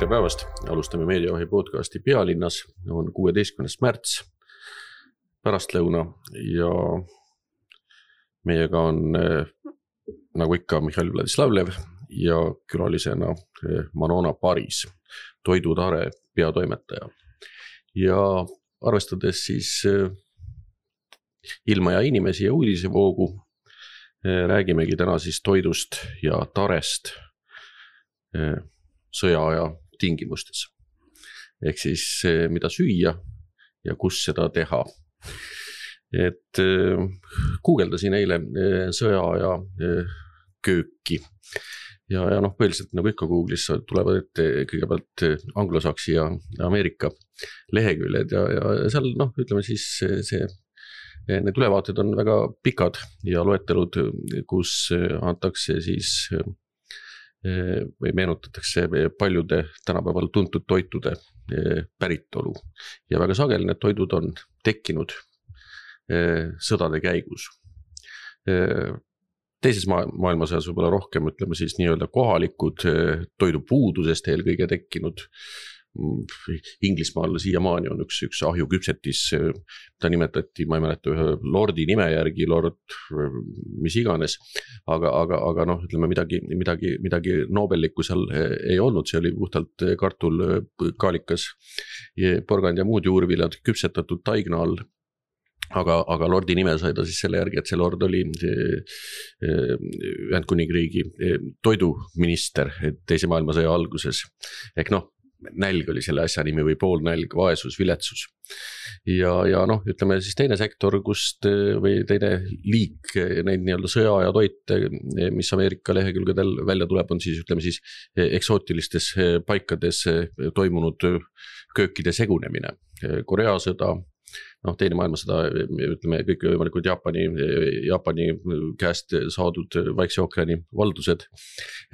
Tere päevast, alustame Meediavahi podcasti Pealinnas, on 16. märts, pärastlõuna ja meiega on nagu ikka Mihhail Vladislavlev ja külalisena Manona Paris, Toidutare peatoimetaja. Ja arvestades siis ilma ja inimesi ja uudisevoogu, räägimegi täna siis toidust ja tarest sõjaaja tingimustes. Ehk siis mida süüa ja kus seda teha. Et guugeldasin eile sõjaaja kööki ja põhiliselt nagu ikka Google'is tulevad ette kõigepealt anglosaksi ja Ameerika leheküljed ja seal ütleme siis need ülevaated on väga pikad ja loetelud, kus antakse siis või meenutatakse paljude tänapäeval tuntud toitude päritolu. Ja väga sageli need toidud on tekkinud sõdade käigus. Teises maailmasõjas võib-olla rohkem, ütleme siis nii-öelda kohalikud toidupuudusest eelkõige tekkinud. Inglismaal siiamaani on üks ahjuküpsetis, ta nimetati, ma ei mäleta ühe lordi nime järgi, lord mis iganes, aga ütleme midagi nobellikku seal ei olnud, see oli puhtalt kartul, kaalikas, porgand ja muud juurviljad küpsetatud taigna all. Aga lordi nime sai ta siis selle järgi, et see lord oli Ühendkuningriigi toiduminister teise maailmasõja alguses. Ehk nälg oli selle asja nimi või poolnälg, vaesus, viletsus. Ja ütleme siis teine sektor, kust või teine liik neid nii-öelda sõja ja toite, mis Ameerika lehekülgedel välja tuleb, on siis ütleme siis eksootilistes paikades toimunud köökide segunemine. Korea sõda, teine maailmasõda, ütleme kõik võimalikud Jaapani käest saadud Vaikse ookeani valdused,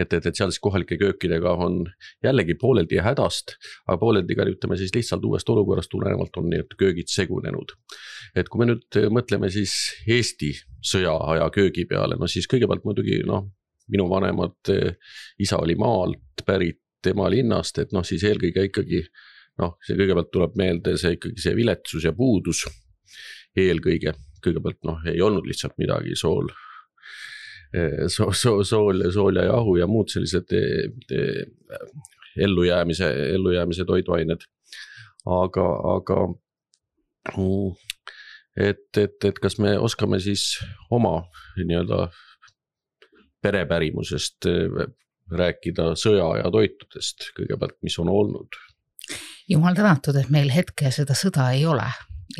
et seal siis kohalike köökidega on jällegi pooleldi hädast, aga pooleldi ka ütleme siis lihtsalt uuest olukorrast tulenevalt on need köögid segunenud. Et kui me nüüd mõtleme siis Eesti sõjaaja köögi peale, siis kõigepealt muidugi minu vanemad isa oli maalt pärit tema linnast, et siis eelkõige ikkagi see kõigepealt tuleb meelde see viletsus ja puudus kõigepealt ei olnud lihtsalt midagi sool ja jahu ja muud sellised ellujäämise toiduained. Aga et kas me oskame siis oma nii-öelda perepärimusest rääkida sõja ja toitudest kõigepealt, mis on olnud? Jumal tänatud, et meil hetke seda sõda ei ole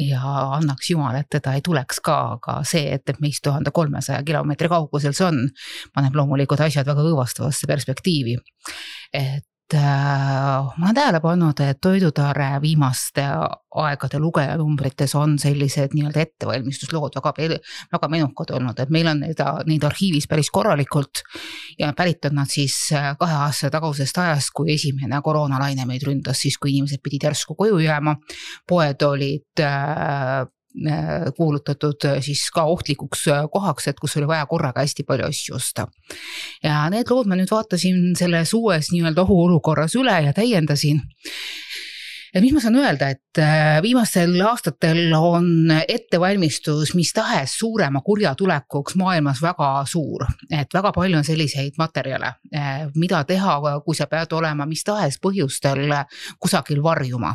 ja annaks Jumal, et teda ei tuleks ka, aga see, et meist 1300 kilomeetri kaugusel see on, paneb loomulikult asjad väga õõvastavasse perspektiivi. Et ma olen tähele pannud, et Toidutare viimaste aegade lugejanumbrites on sellised nii-öelda ettevalmistuslood väga menukad olnud, et meil on neid arhiivis päris korralikult ja pärit on nad siis 2 aasta tagusest ajast, kui esimene koroonalaine meid ründas, siis kui inimesed pidid järsku koju jääma, poed olid kuulutatud siis ka ohtlikuks kohaks, et kus oli vaja korraga hästi palju asju osta. Ja need lood ma nüüd vaatasin selles uues nii-öelda ohuolukorras üle ja täiendasin. Ja mis ma saan öelda, et viimastel aastatel on ettevalmistus mis tahes suurema kurja tulekuks maailmas väga suur. Et väga palju on selliseid materjale, mida teha, kui sa pead olema mis tahes põhjustel kusagil varjuma.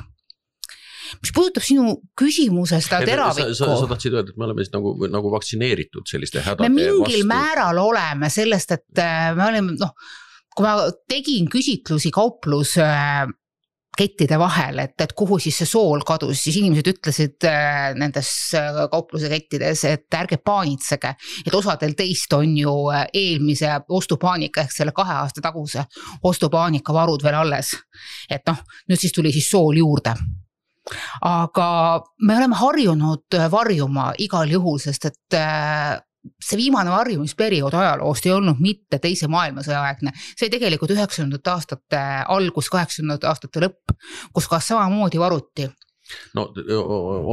Mis puudutab sinu küsimusest teravikku. Sa tahtsid öelda, et me oleme siis nagu vaktsineeritud selliste hädade vastu. Me mingil määral oleme sellest, et me oleme, kui ma tegin küsitlusi kauplus kettide vahel, et kuhu siis see sool kadus, siis inimesed ütlesid nendes kaupluse kettides, et ärge paanitsege, et osadel teist on ju eelmise ostupaanika ehk selle 2 aasta taguse ostupaanika varud veel alles. Et nüüd siis tuli siis sool juurde. Aga me oleme harjunud varjuma igal juhul, sest et see viimane varjumisperiood ajaloost ei olnud mitte teise maailmasõja aegne. See oli tegelikult 90. aastate algus, 80. aastate lõpp, kus ka samamoodi varuti. no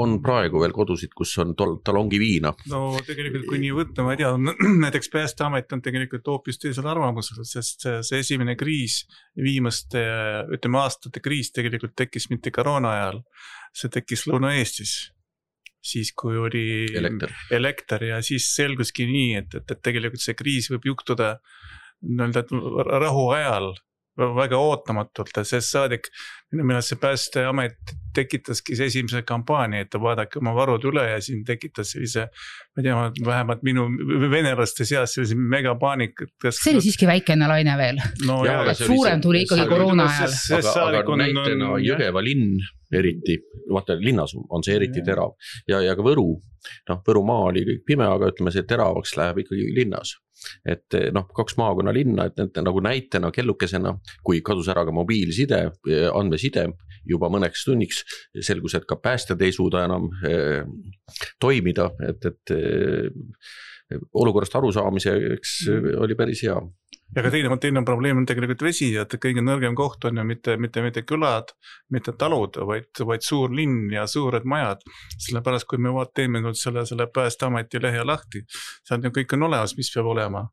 on praegu veel kodusid, kus on talongi viina. No tegelikult kui nii võtta, ma ei tea, näiteks Päästeamet on tegelikult hoopis teisel arvamusel, sest see esimene kriis, viimaste, ütleme aastate kriis tegelikult tekkis mitte koroona ajal, see tekkis Lõuna-Eestis. Siis kui oli elekter ja siis selguski nii, et tegelikult see kriis võib juhtuda rahu ajal väga ootamatult, sest saadik, minu meelest see Päästeamet tekitaski see esimese kampaania, et vaadake oma varud üle ja siin tekitas sellise, ma tea, vähemalt minu venelaste seas sellise megapaanik. See oli siiski väikene laine veel. No, suurem tuli ikkagi koroona ajal. Aga näitena Jõgeva linn eriti, vaata linnas on see eriti terav ja ka Võru, Võrumaa oli kõik pime, aga ütleme see teravaks läheb ikkagi linnas. Et 2 maakonna linna, et nagu näitena kellukesena, kui kadus ära ka mobiilside, andmeside juba mõneks tunniks, selgus, et ka päästjad ei suuda enam toimida, et olukorrast arusaamiseks oli päris hea. Ja ka teine probleem on tegelikult vesi, et kõige nõrgem koht on ju mitte külad, mitte talud, vaid suur linn ja suured majad. Sellepärast, kui me teeme selle Päästeameti lehe lahti, seal kõik on olemas, mis peab olema.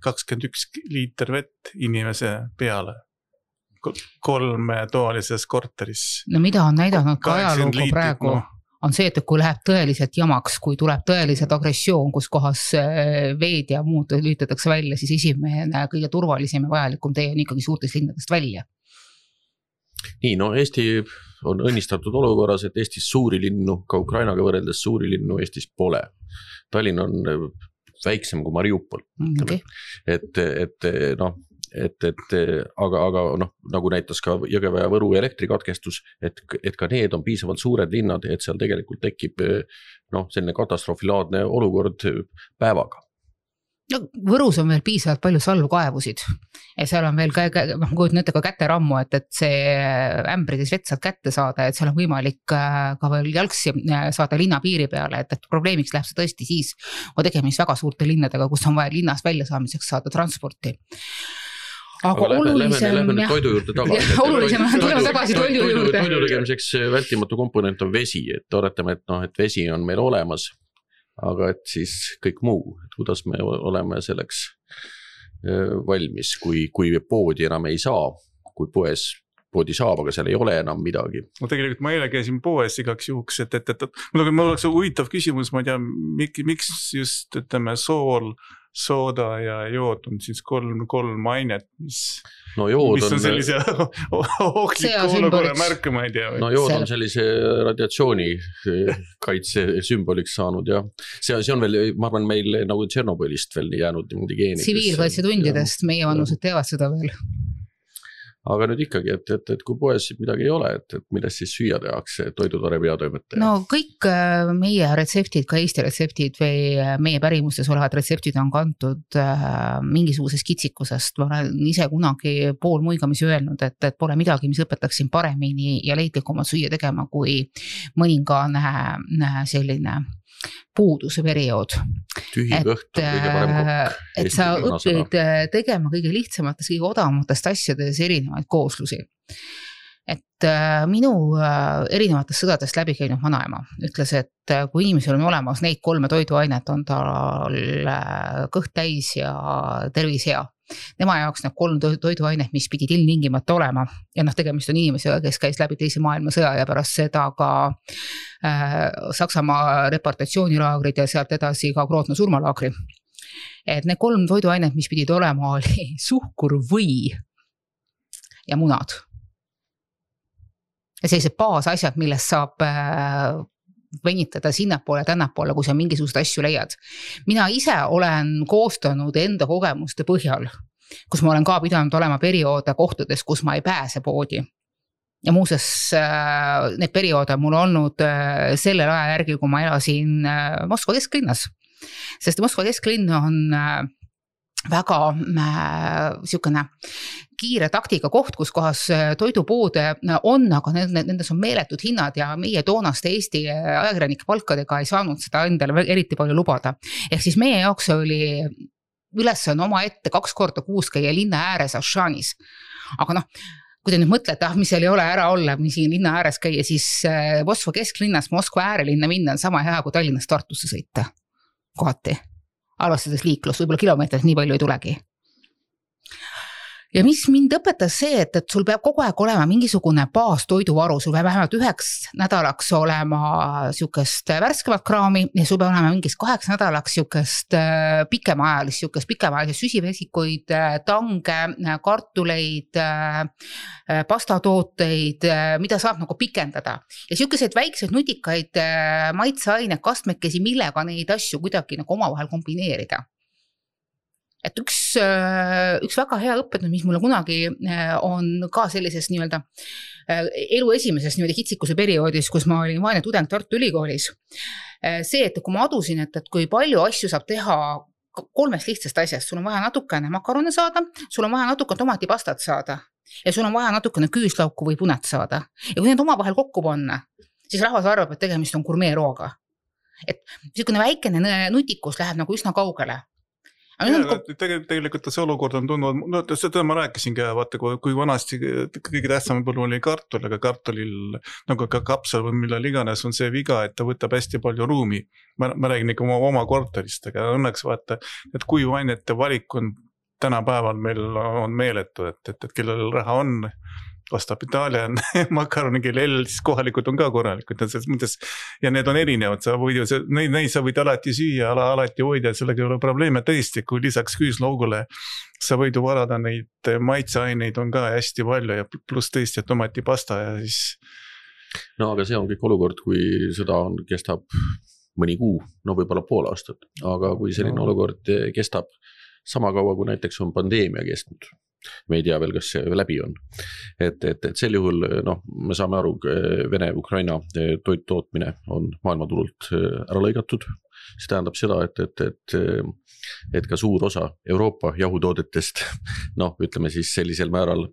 21 liiter vett inimese peale. 3 toalises korteris. No mida on näidanud ka ajalooga praegu? On see, et kui läheb tõeliselt jamaks, kui tuleb tõeliselt agressioon, kus kohas veed ja muud lüütatakse välja, siis esimene kõige turvalisem ja vajalikum tee on ikkagi suurtest linnadest välja. Nii, Eesti on õnnistatud olukorras, et Eestis suuri linnu, ka Ukrainaga võrreldes suuri linnu Eestis pole. Tallinn on väiksem kui Mariupol. Okay. Aga nagu näitas ka Jõgeva ja Võru elektrikatkestus, et ka need on piisavalt suured linnad, et seal tegelikult tekib selline katastroofilaadne olukord päevaga. No, Võrus on veel piisavalt palju salvkaevusid ja seal on veel kujutan ka käterammu, et see ämbrides vett saad kätte saada, et seal on võimalik ka veel jalgsi saada linna piiri peale, et probleemiks läheb see tõesti siis, kui tegemist väga suurte linnadega, kus on vaja linnast välja saamiseks saada transporti. Aga lähme toidu juurde tagasi. Olulisem on tulema tagasi toidu juurde. Toidu tegemiseks vältimatu komponent on vesi, et oletame, et vesi on meil olemas, aga et siis kõik muu, et kuidas me oleme selleks valmis, kui poodi enam ei saa, kui poodi saab, aga seal ei ole enam midagi. No tegelikult ma eile käisin poes igaks juhuks, et mul oleks huvitav küsimus, ma ei tea, miks just sool, sooda ja jood on siis 3 ainet, mis on sellise ohtliku olukorra märk, ma ei tea. No jood on sellise radiatsiooni kaitse sümboliks saanud ja see on veel, ma arvan, meil nagu Tšernobõlist veel jäänud geenides. Tsiviilkaitsetundidest meie vanused teevad seda veel. Aga nüüd ikkagi, et kui poes midagi ei ole, et millest siis süüa tehakse toidutore peatoimetaja? No kõik meie retseptid, ka Eesti retseptid või meie pärimustes olevad retseptid on kantud mingisugusest kitsikusest. Ma olen ise kunagi pool muigamisi öelnud, et pole midagi, mis õpetaksin paremini ja leidlikumalt süüa tegema kui mõningane selline puuduse periood. Tühi kõht on kõige parem kokk. Et sa õpid tegema kõige lihtsamatest, kõige odavamatest asjades erinevaid kooslusi. Et minu erinevatest sõdadest läbi käinud vanaema ütles, et kui inimesel on olemas neid 3 toiduainet, on tal kõht täis ja tervis hea. Tema jaoks need 3 toiduainet, mis pidid ilmtingimata olema ja tegemist on inimesega, kes käis läbi teise maailmasõja ja pärast seda ka Saksamaa reportatsioonilaagrid ja sealt edasi ka Grootna surmalaagri. Et need 3 toiduainet, mis pidid olema, oli suhkur, või ja munad. Ja sellised baasasjad, millest saab venitada sinnapoole, tännapoole, kui sa mingisugust asju leiad. Mina ise olen koostanud enda kogemuste põhjal, kus ma olen ka pidanud olema perioode kohtades, kus ma ei pääse poodi. Ja muuses need perioode mul olnud sellel aja järgi, kui ma elasin Moskva kesklinnas. Sest Moskva kesklinn on väga siukene kiire taktika koht, kus kohas toidupoode on, aga nendes on meeletud hinnad ja meie toonaste Eesti ajakirjanike palkadega ei saanud seda endale eriti palju lubada. Ehk siis meie jaoks oli ülesanne oma ette 2 korda kuus käia linna ääres Ashanis. Aga kui te nüüd mõtlete, mis seal ei ole ära olla, mis siin linna ääres käia, siis Moskva kesklinnast Moskva äärelinna minna on sama hea kui Tallinnast Tartusse sõita kohati. Arvestades liiklust, võib-olla kilomeetrit nii palju ei tulegi. Ja mis mind õpetas see, et sul peab kogu aeg olema mingisugune baastoiduvaru, sul peab vähemalt 9 nädalaks olema siukest värskemat kraami ja sul peab olema mingis 8 nädalaks siukest pikemaajalist süsivesikuid, tange, kartuleid, pastatooteid, mida saab nagu pikendada. Ja siukeseid väikseid nutikaid maitseaine kastmekesi, millega neid asju kuidagi nagu omavahel kombineerida. Et üks väga hea õpetnud, mis mulle kunagi on ka sellises nii-öelda elu esimeses nii-öelda kitsikuse perioodis, kus ma olin vaene tudeng Tartu Ülikoolis. See, et kui ma adusin, et kui palju asju saab teha 3 lihtsast asjast, sul on vaja natukene makarone saada, sul on vaja natukene tomatipastat saada ja sul on vaja natukene küüslauku või punet saada. Ja kui need omavahel kokku panna, siis rahvas arvab, et tegemist on gurmeerooga. Et niisugune väikene nutikus läheb nagu üsna kaugele. Tegelikult see olukord on tundnud, seda ma rääkisin ka, vaata, kui vanasti kõige tähtsam põllu oli kartul, aga kartulil, nagu ka kapsel või millal iganes on see viga, et ta võtab hästi palju ruumi. Ma räägin ikka oma korterist, aga õnneks vaata, et kui vainete valik on tänapäeval meil on meeletu, et kellel raha on, ostab Itaalia makaroni, kellel siis kohalikud on ka korralikud ja need on erinevad, neid sa võid alati süüa, alati hoida, sellega ei ole probleeme tõesti, kui lisaks küüslaugule sa võid varada neid maitseaineid on ka hästi palju ja pluss tõesti tomatipasta ja siis. No aga see on kõik olukord, kui sõda kestab mõni kuu, no võib-olla pool aastat, aga kui selline olukord kestab sama kaua, kui näiteks on pandeemia kestnud, me ei tea veel, kas see läbi on. Et sel juhul, me saame aru, Vene-Ukraina toittootmine on maailmaturult ära lõigatud. See tähendab seda, et ka suur osa Euroopa jahutoodetest, ütleme siis sellisel määral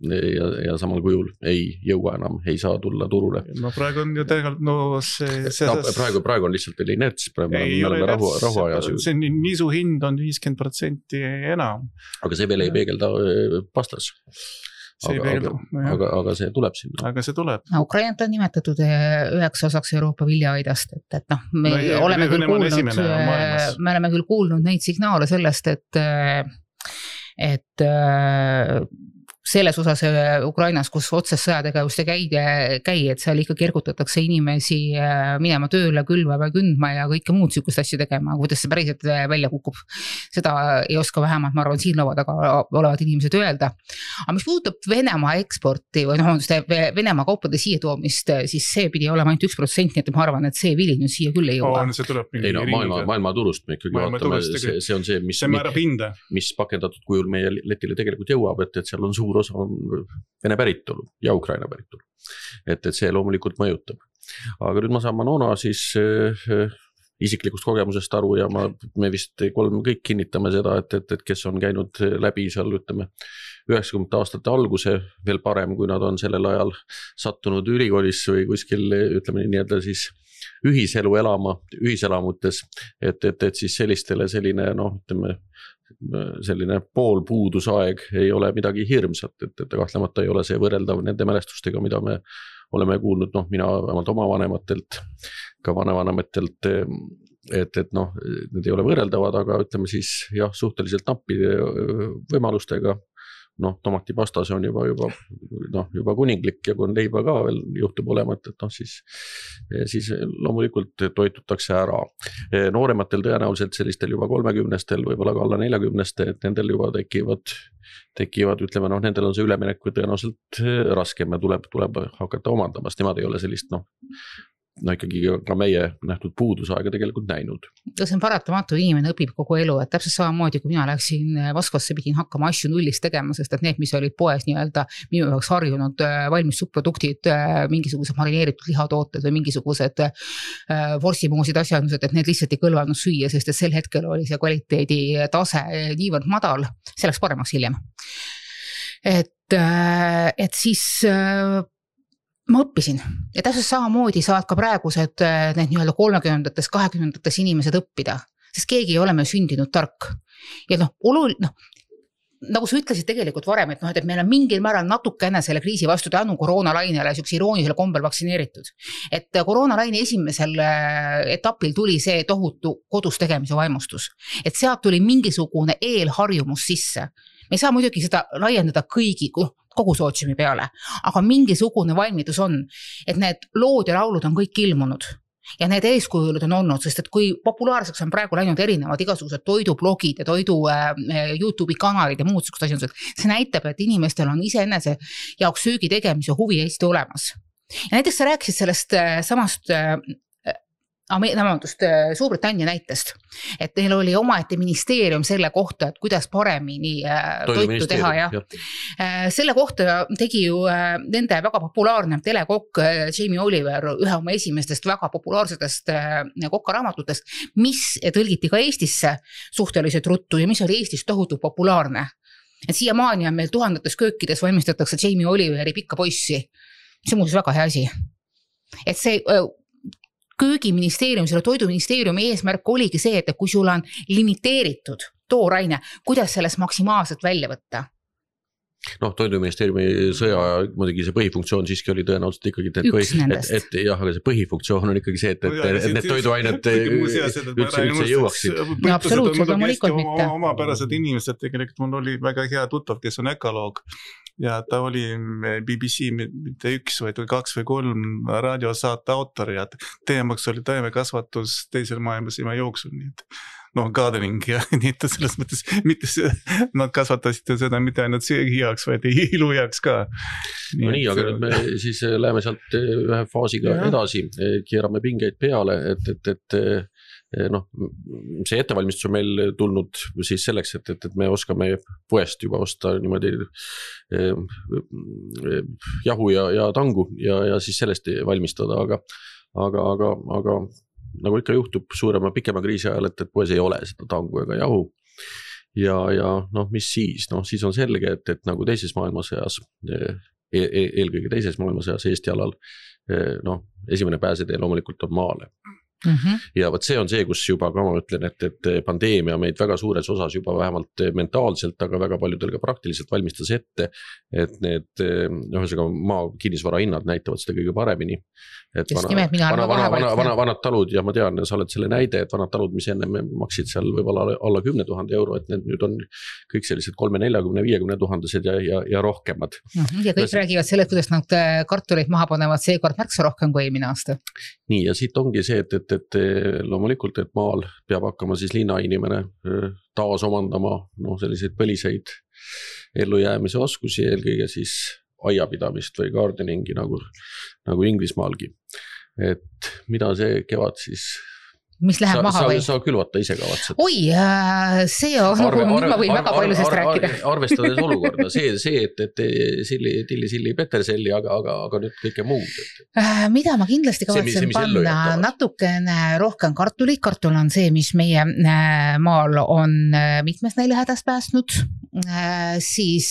ja samal kujul ei jõua enam, ei saa tulla turule. No praegu on ju tegelikult, praegu on lihtsalt veel inerts, praegu me oleme rahuajas. See nisu hind on 50% enam. Aga see veel ei peegelda pastas. Aga see tuleb sinna. Aga see tuleb. Ukrainat on nimetatud üheks osaks Euroopa viljaaidast, et me oleme küll kuulnud neid signaale sellest, et selles osas Ukrainas, kus otsest sõjategevust ei käi, et seal ikka kergutatakse inimesi minema tööle, külvama, kündma ja kõike muud sükust asju tegema, kuidas see päriselt välja kukub. Seda ei oska vähemalt, ma arvan, siin laua taga olevad inimesed öelda. Aga mis puudutab Venemaa eksporti või Venemaa kaupade siia toomist, siis see pidi olema ainult 1%, et ma arvan, et see vili nüüd siia küll ei jõua. Maailma turust me ikkagi vaatame, see on see, mis pakendatud kujul meie letile tegelikult jõuab, et seal on suur osa on Vene päritolu ja Ukraina päritolu. Et see loomulikult mõjutab. Aga nüüd ma saan Manona siis isiklikust kogemusest aru ja me vist kõik kinnitame seda, et kes on käinud läbi seal, ütleme, 90 aastate alguse, veel parem, kui nad on sellel ajal sattunud ülikoolis või kuskil, ütleme nii-öelda siis ühiselu elama, ühiselamutes, et siis sellistele selline, ütleme, selline poolpuudusaeg ei ole midagi hirmsat, et kahtlemata ei ole see võrreldav nende mälestustega, mida me oleme kuulnud, mina vähemalt oma vanematelt, ka vanavanematelt, et need ei ole võrreldavad, aga ütleme siis suhteliselt nappide võimalustega, tomatipasta see on juba kuninglik ja kui on leiba ka veel juhtub olema, et siis loomulikult toitutakse ära. Noorematel tõenäoliselt sellistel juba 30-stel, võib-olla ka alla 40-ste, et nendel juba tekivad, ütleme, nendel on see üleminek tõenäoliselt raskem ja tuleb hakata omandamast, nemad ei ole sellist, ikkagi ka meie nähtud puudusaega tegelikult näinud. See on paratamatu, inimene õpib kogu elu, et täpselt samamoodi, kui mina läksin Moskvasse, pidin hakkama asju nullist tegema, sest et need, mis olid poes nii-öelda minu jaoks harjunud valmis subproduktid, mingisugused marineeritud lihatooted või mingisugused vorsimoosid asjandused, et need lihtsalt ei kõlvanud süüa, sest et sel hetkel oli see kvaliteedi tase niivõrd madal, see läks paremaks hiljem. Et siis ma õppisin ja täpselt samamoodi saad ka praegused need nii-öelda 30-ndates, 20-ndates inimesed õppida, sest keegi ei ole meil sündinud tark. Ja nagu sa ütlesid tegelikult varem, et et meil on mingil määral natukene selle kriisi vastu tänu koroonalainele siukse iroonilisel kombel vaktsineeritud. Et koroonalaine esimesel etapil tuli see tohutu kodus tegemise vaimustus. Et sealt tuli mingisugune eelharjumus sisse. Me ei saa muidugi seda laiendada kogu sootsiumi peale, aga mingisugune valmidus on, et need lood ja laulud on kõik ilmunud. Ja need eeskujulud on olnud, sest et kui populaarseks on praegu läinud erinevad igasugused toidublogid ja toidu YouTube'i kanalid ja muud asjad, see näitab, et inimestel on iseenese jaoks söögi tegemise huvi Eesti olemas. Ja näiteks sa rääkisid sellest samast Suurbritannia näitest, et neil oli omaette ministeerium selle kohta, et kuidas paremini toitu teha ja selle kohta tegi ju nende väga populaarne telekokk Jamie Oliver ühe oma esimestest väga populaarsetest kokkaraamatutest, mis tõlgiti ka Eestisse suhteliselt ruttu ja mis oli Eestis tohutu populaarne. Et siiamaani on meil tuhandetes köökides valmistatakse Jamie Oliveri pikka poissi. See on muuseas väga hea asi. Et see köögiministeerium, selle toiduministeeriumi eesmärk oligi see, et kui sul on limiteeritud tooraine, kuidas sellest maksimaalselt välja võtta? Toiduministeeriumi sõja muidugi see põhifunktsioon siiski oli tõenäoliselt ikkagi, et jah, aga see põhifunktsioon on ikkagi see, et need toiduained üldse jõuaksid. Absoluutselt, loomulikult mitte. Omapärased inimesed, tegelikult mul oli väga hea tuttav, kes on ökoloog ja ta oli BBC mitte 1 või 2 või 3 raadiosaate autor ja teemaks oli taimekasvatus teisel maailmasõja jooksul, nii et gardening ja nii, et selles mõttes mitte nad kasvatasid seda mitte ainult söögi jaoks, vaid ilu jaoks ka. Nii, aga nüüd me siis läheme sealt ühe faasiga edasi, keerame pingeid peale, et see ettevalmistus on meil tulnud siis selleks, et me oskame poest juba osta niimoodi jahu ja tangu ja siis sellest valmistada, aga nagu ikka juhtub suurema pikema kriisi ajal, et poes ei ole seda tangu ega jahu. Ja mis siis? Siis on selge, et nagu teises maailmasõjas, eelkõige teises maailmasõjas Eesti alal, esimene pääsetee loomulikult on maale. Ja võt see on see, kus juba ka ma ütlen, et pandeemia meid väga suures osas juba vähemalt mentaalselt, aga väga paljudel ka praktiliselt valmistas ette, et need maa kinnisvara hinnad näitavad seda kõige paremini. Vanad talud, ja ma tean, sa oled selle näide, et vanad talud, mis enne maksid seal võib-olla alla 10 000 euro, et need nüüd on kõik sellised 30, 40, 50 000 ja rohkemad. Ja kõik räägivad selle, kuidas nad kartuleid maha panevad seekord märksa rohkem kui eelmine aasta. Nii, ja siit ongi see, et loomulikult, et maal peab hakkama siis linnainimene taas omandama selliseid põliseid ellujäämise oskusi, eelkõige siis aiapidamist või gardeningi nagu Inglismaalgi. Et mida see kevad siis mis läheb maha või? Sa külvata ise kavatsed. Oi, see on, nüüd ma võin väga palju sellest rääkida. Arvestades olukorda, see, et tilli, peterselli, aga nüüd kõike muud. Mida ma kindlasti kavatsen panna natukene rohkem kartulit. Kartul on see, mis meie maal on mitmes näilehädast päästnud. Siis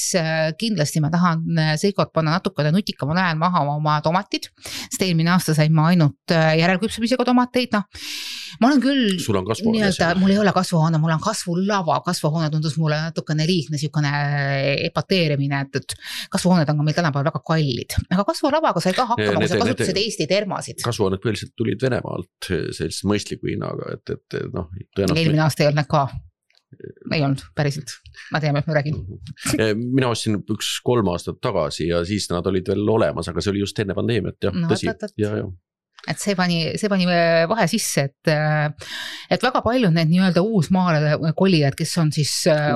kindlasti ma tahan seekord panna natukene nutikamal ajal maha oma tomatid. Sest eelmine aasta sain ma ainult järelküpsemisega tomateid. Ma olen küll, mul ei ole kasvuhoone, mul on kasvulava, kasvuhoone tundus mulle natukene liigne sükone epateerimine, et kasvuhooned on ka meil tänapäeval väga kallid, aga kasvulavaga sai ka hakkama, kui sa kasutasid Eesti termasid. Kasvuhooned põhiliselt tulid Venemaalt sellist mõistliku hinnaga, et eelmine aasta ei olnud ka. Ei olnud, päriselt. Ma tean, et ma räägin. Mina ostsin 3 aastat tagasi ja siis nad olid veel olemas, aga see oli just enne pandeemiat, tõsi. Ja. Et see pani vahe sisse, et väga palju need nii-öelda uusmaale kolijad, kes on siis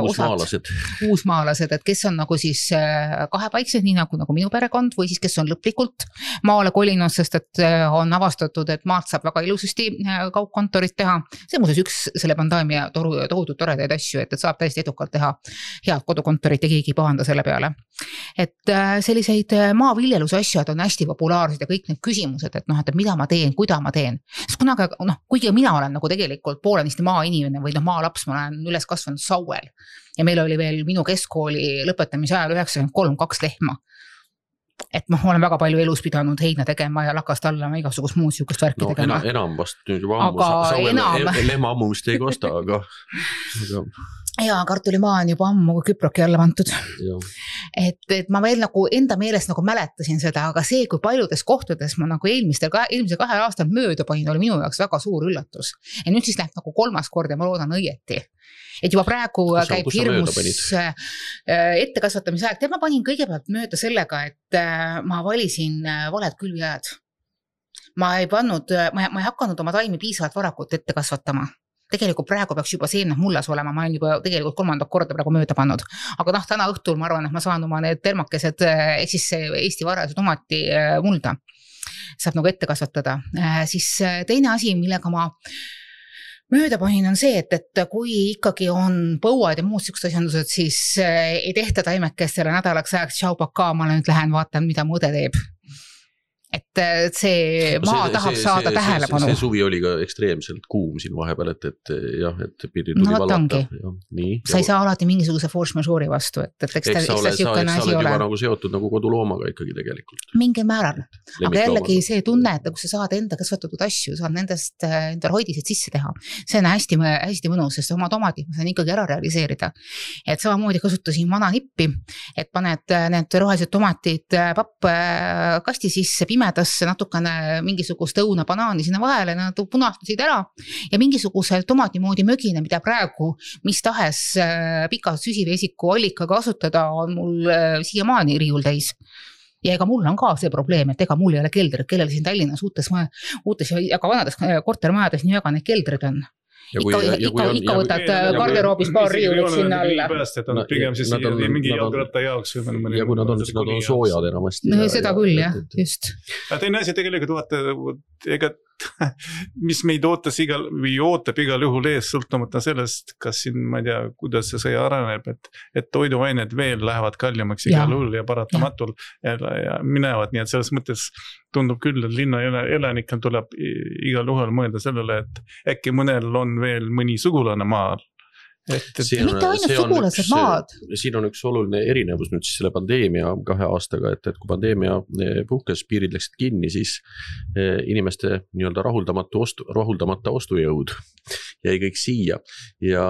uusmaalased, et kes on nagu siis kahepaiksed, nii nagu minu perekond, või siis kes on lõplikult maale kolinud, sest et on avastatud, et maalt saab väga ilusasti kaugkontorit teha. See muuseas üks selle pandaamia tohutult toredaid asju, et saab täiesti edukalt teha head kodukontorit ja keegi pahanda selle peale. Et selliseid maaviljeluse asjad on hästi populaarsed ja kõik need küsimused, et mida ma teen, kuida ma teen. Sest kunagi, kuigi mina olen nagu tegelikult poolenisti maainimene või maalaps, ma olen üles kasvanud Sauel. Ja meil oli veel minu keskkooli lõpetamise ajal 93 lehma. Et ma olen väga palju elus pidanud heina tegema ja lakast alla igasugust muud sihukest värki tegema. Enam vast nüüd juba lehma ammumist ei kosta, aga ja kartulimaa on juba ammu küproki alla vantud. Et ma veel nagu enda meelest nagu mäletasin seda, aga see, kui paljudes kohtades ma nagu eelmise 2 aastal mööda panin, oli minu jaoks väga suur üllatus. Ja nüüd siis läheb nagu 3. kord ja ma loodan õieti. Et juba praegu käib hirmus ettekasvatamise aeg. Tead, ma panin kõigepealt mööda sellega, et ma valisin valed külvijääd. Ma ei hakanud oma taimi piisavalt varakult ette kasvatama. Tegelikult praegu peaks juba seemned mullas olema, ma olen juba tegelikult 3. korda praegu mööda pannud. Aga täna õhtul ma arvan, et ma saan oma need termakesed, ehk siis Eesti varased tomati mulda saab nagu ette kasvatada. Siis teine asi, millega ma mööda panin on see, et kui ikkagi on põuad ja muud siuksed asjandused, siis ei tehta taimekestele nädalaks ajaks tšaupaka, ma nüüd lähen vaatan, mida mu õde teeb. Et see maa tahab saada tähelepanu. See suvi oli ka ekstreemselt kuum siin vahepeal, et jah, et pidi tuli valata. Sa ei saa alati mingisuguse force majeure'i vastu, et eks ta siukene asi ole. Sa oled juba nagu seotud nagu koduloomaga ikkagi tegelikult. Mingi määral. Aga jällegi see tunne, et kui sa saad enda kasvatatud asju, saad nendest endal hoidised sisse teha. See on hästi mõnus, sest oma tomatid ma saan ikkagi ära realiseerida. Et samamoodi kasutasin vana nippi, et paned need rohelised tomatid pappkasti sisse, pimedasse natukene mingisugust õuna banaani sinna vahele, nad punastusid ära ja mingisuguse tomati moodi mögine, mida praegu mis tahes pika süsivesiku allika kasutada on mul siiamaani riiul täis. Ja ega mul on ka see probleem, et ega mul ei ole keldrid, kellel siin Tallinnas uutes ja ka vanades kortermajades nii väga need keldrid on. Ikka võtad garderoobis paar riiulit sinna alla. Pigem siis mingi jalgratta jaoks. Ja kui nad on soojad enamasti. Seda küll, jah, just. Teine asi tegelikult vaata, mis meid ootab igal juhul ees sõltumata sellest, kas siin, ma ei tea, kuidas see areneb, et toiduained veel lähevad kallimaks igal juhul ja paratamatul ja minevad, nii et selles mõttes tundub küll, et linna elanikel tuleb igal juhul mõelda sellele, et äkki mõnel on veel mõni sugulane maal. Mitte ainult sugulased maad. Siin on üks oluline erinevus nüüd siis selle pandeemia 2 aastaga, et kui pandeemia puhkes, piirid läksid kinni, siis inimeste nii-öelda rahuldamata ostujõud jäi kõik siia ja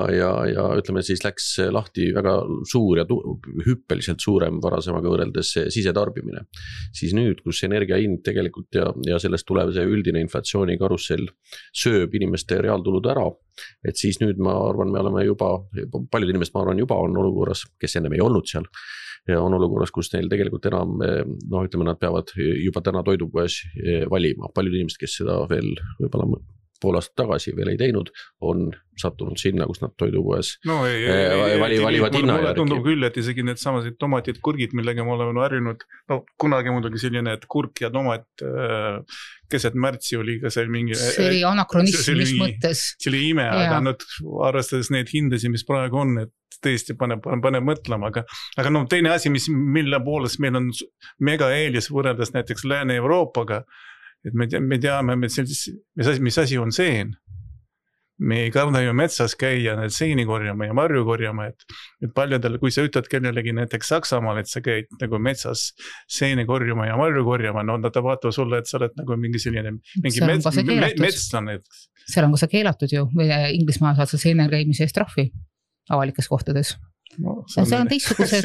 ütleme siis läks lahti väga suur ja hüppeliselt suurem varasemaga võrreldes sisetarbimine. Siis nüüd, kus energia hind tegelikult ja sellest tulev see üldine inflatsiooni karussell sööb inimeste reaaltulud ära, et siis nüüd ma arvan, me oleme juba, paljud inimesed ma arvan juba on olukorras, kes ennem ei olnud seal ja on olukorras, kus neil tegelikult enam, ütleme, nad peavad juba täna toidupoes valima. Paljud inimesed, kes seda veel võib-olla pool aastat tagasi veel ei teinud, on sattunud sinna, kus nad toidupoes valivad hinna järgi. Tundub küll, et isegi need samased tomatid, kurgid, millega me oleme harjunud, kunagi muidugi selline, et kurk ja tomat keset märtsi oli ka see mingi... See oli anakronism, mis mõttes. See oli ime, aga arvestades need hindasi, mis praegu on, et tõesti paneb mõtlema, aga teine asi, mille poolest meil on mega eelis võrreldes näiteks Lääne-Euroopaga, et me teame, mis asi on seen. Me ei karda ju metsas käia need seeni korjama ja marju korjama, et paljudel, kui sa ütled kellelegi näiteks Saksamaal, et sa käid nagu metsas seeni korjama ja marju korjama, nad vaatavad sulle, et sa oled nagu mingi selline metslane. Seal on ka see keelatud ju, Inglismaa saad sa seene käimise eest trahvi avalikes kohtades. See on teistsugused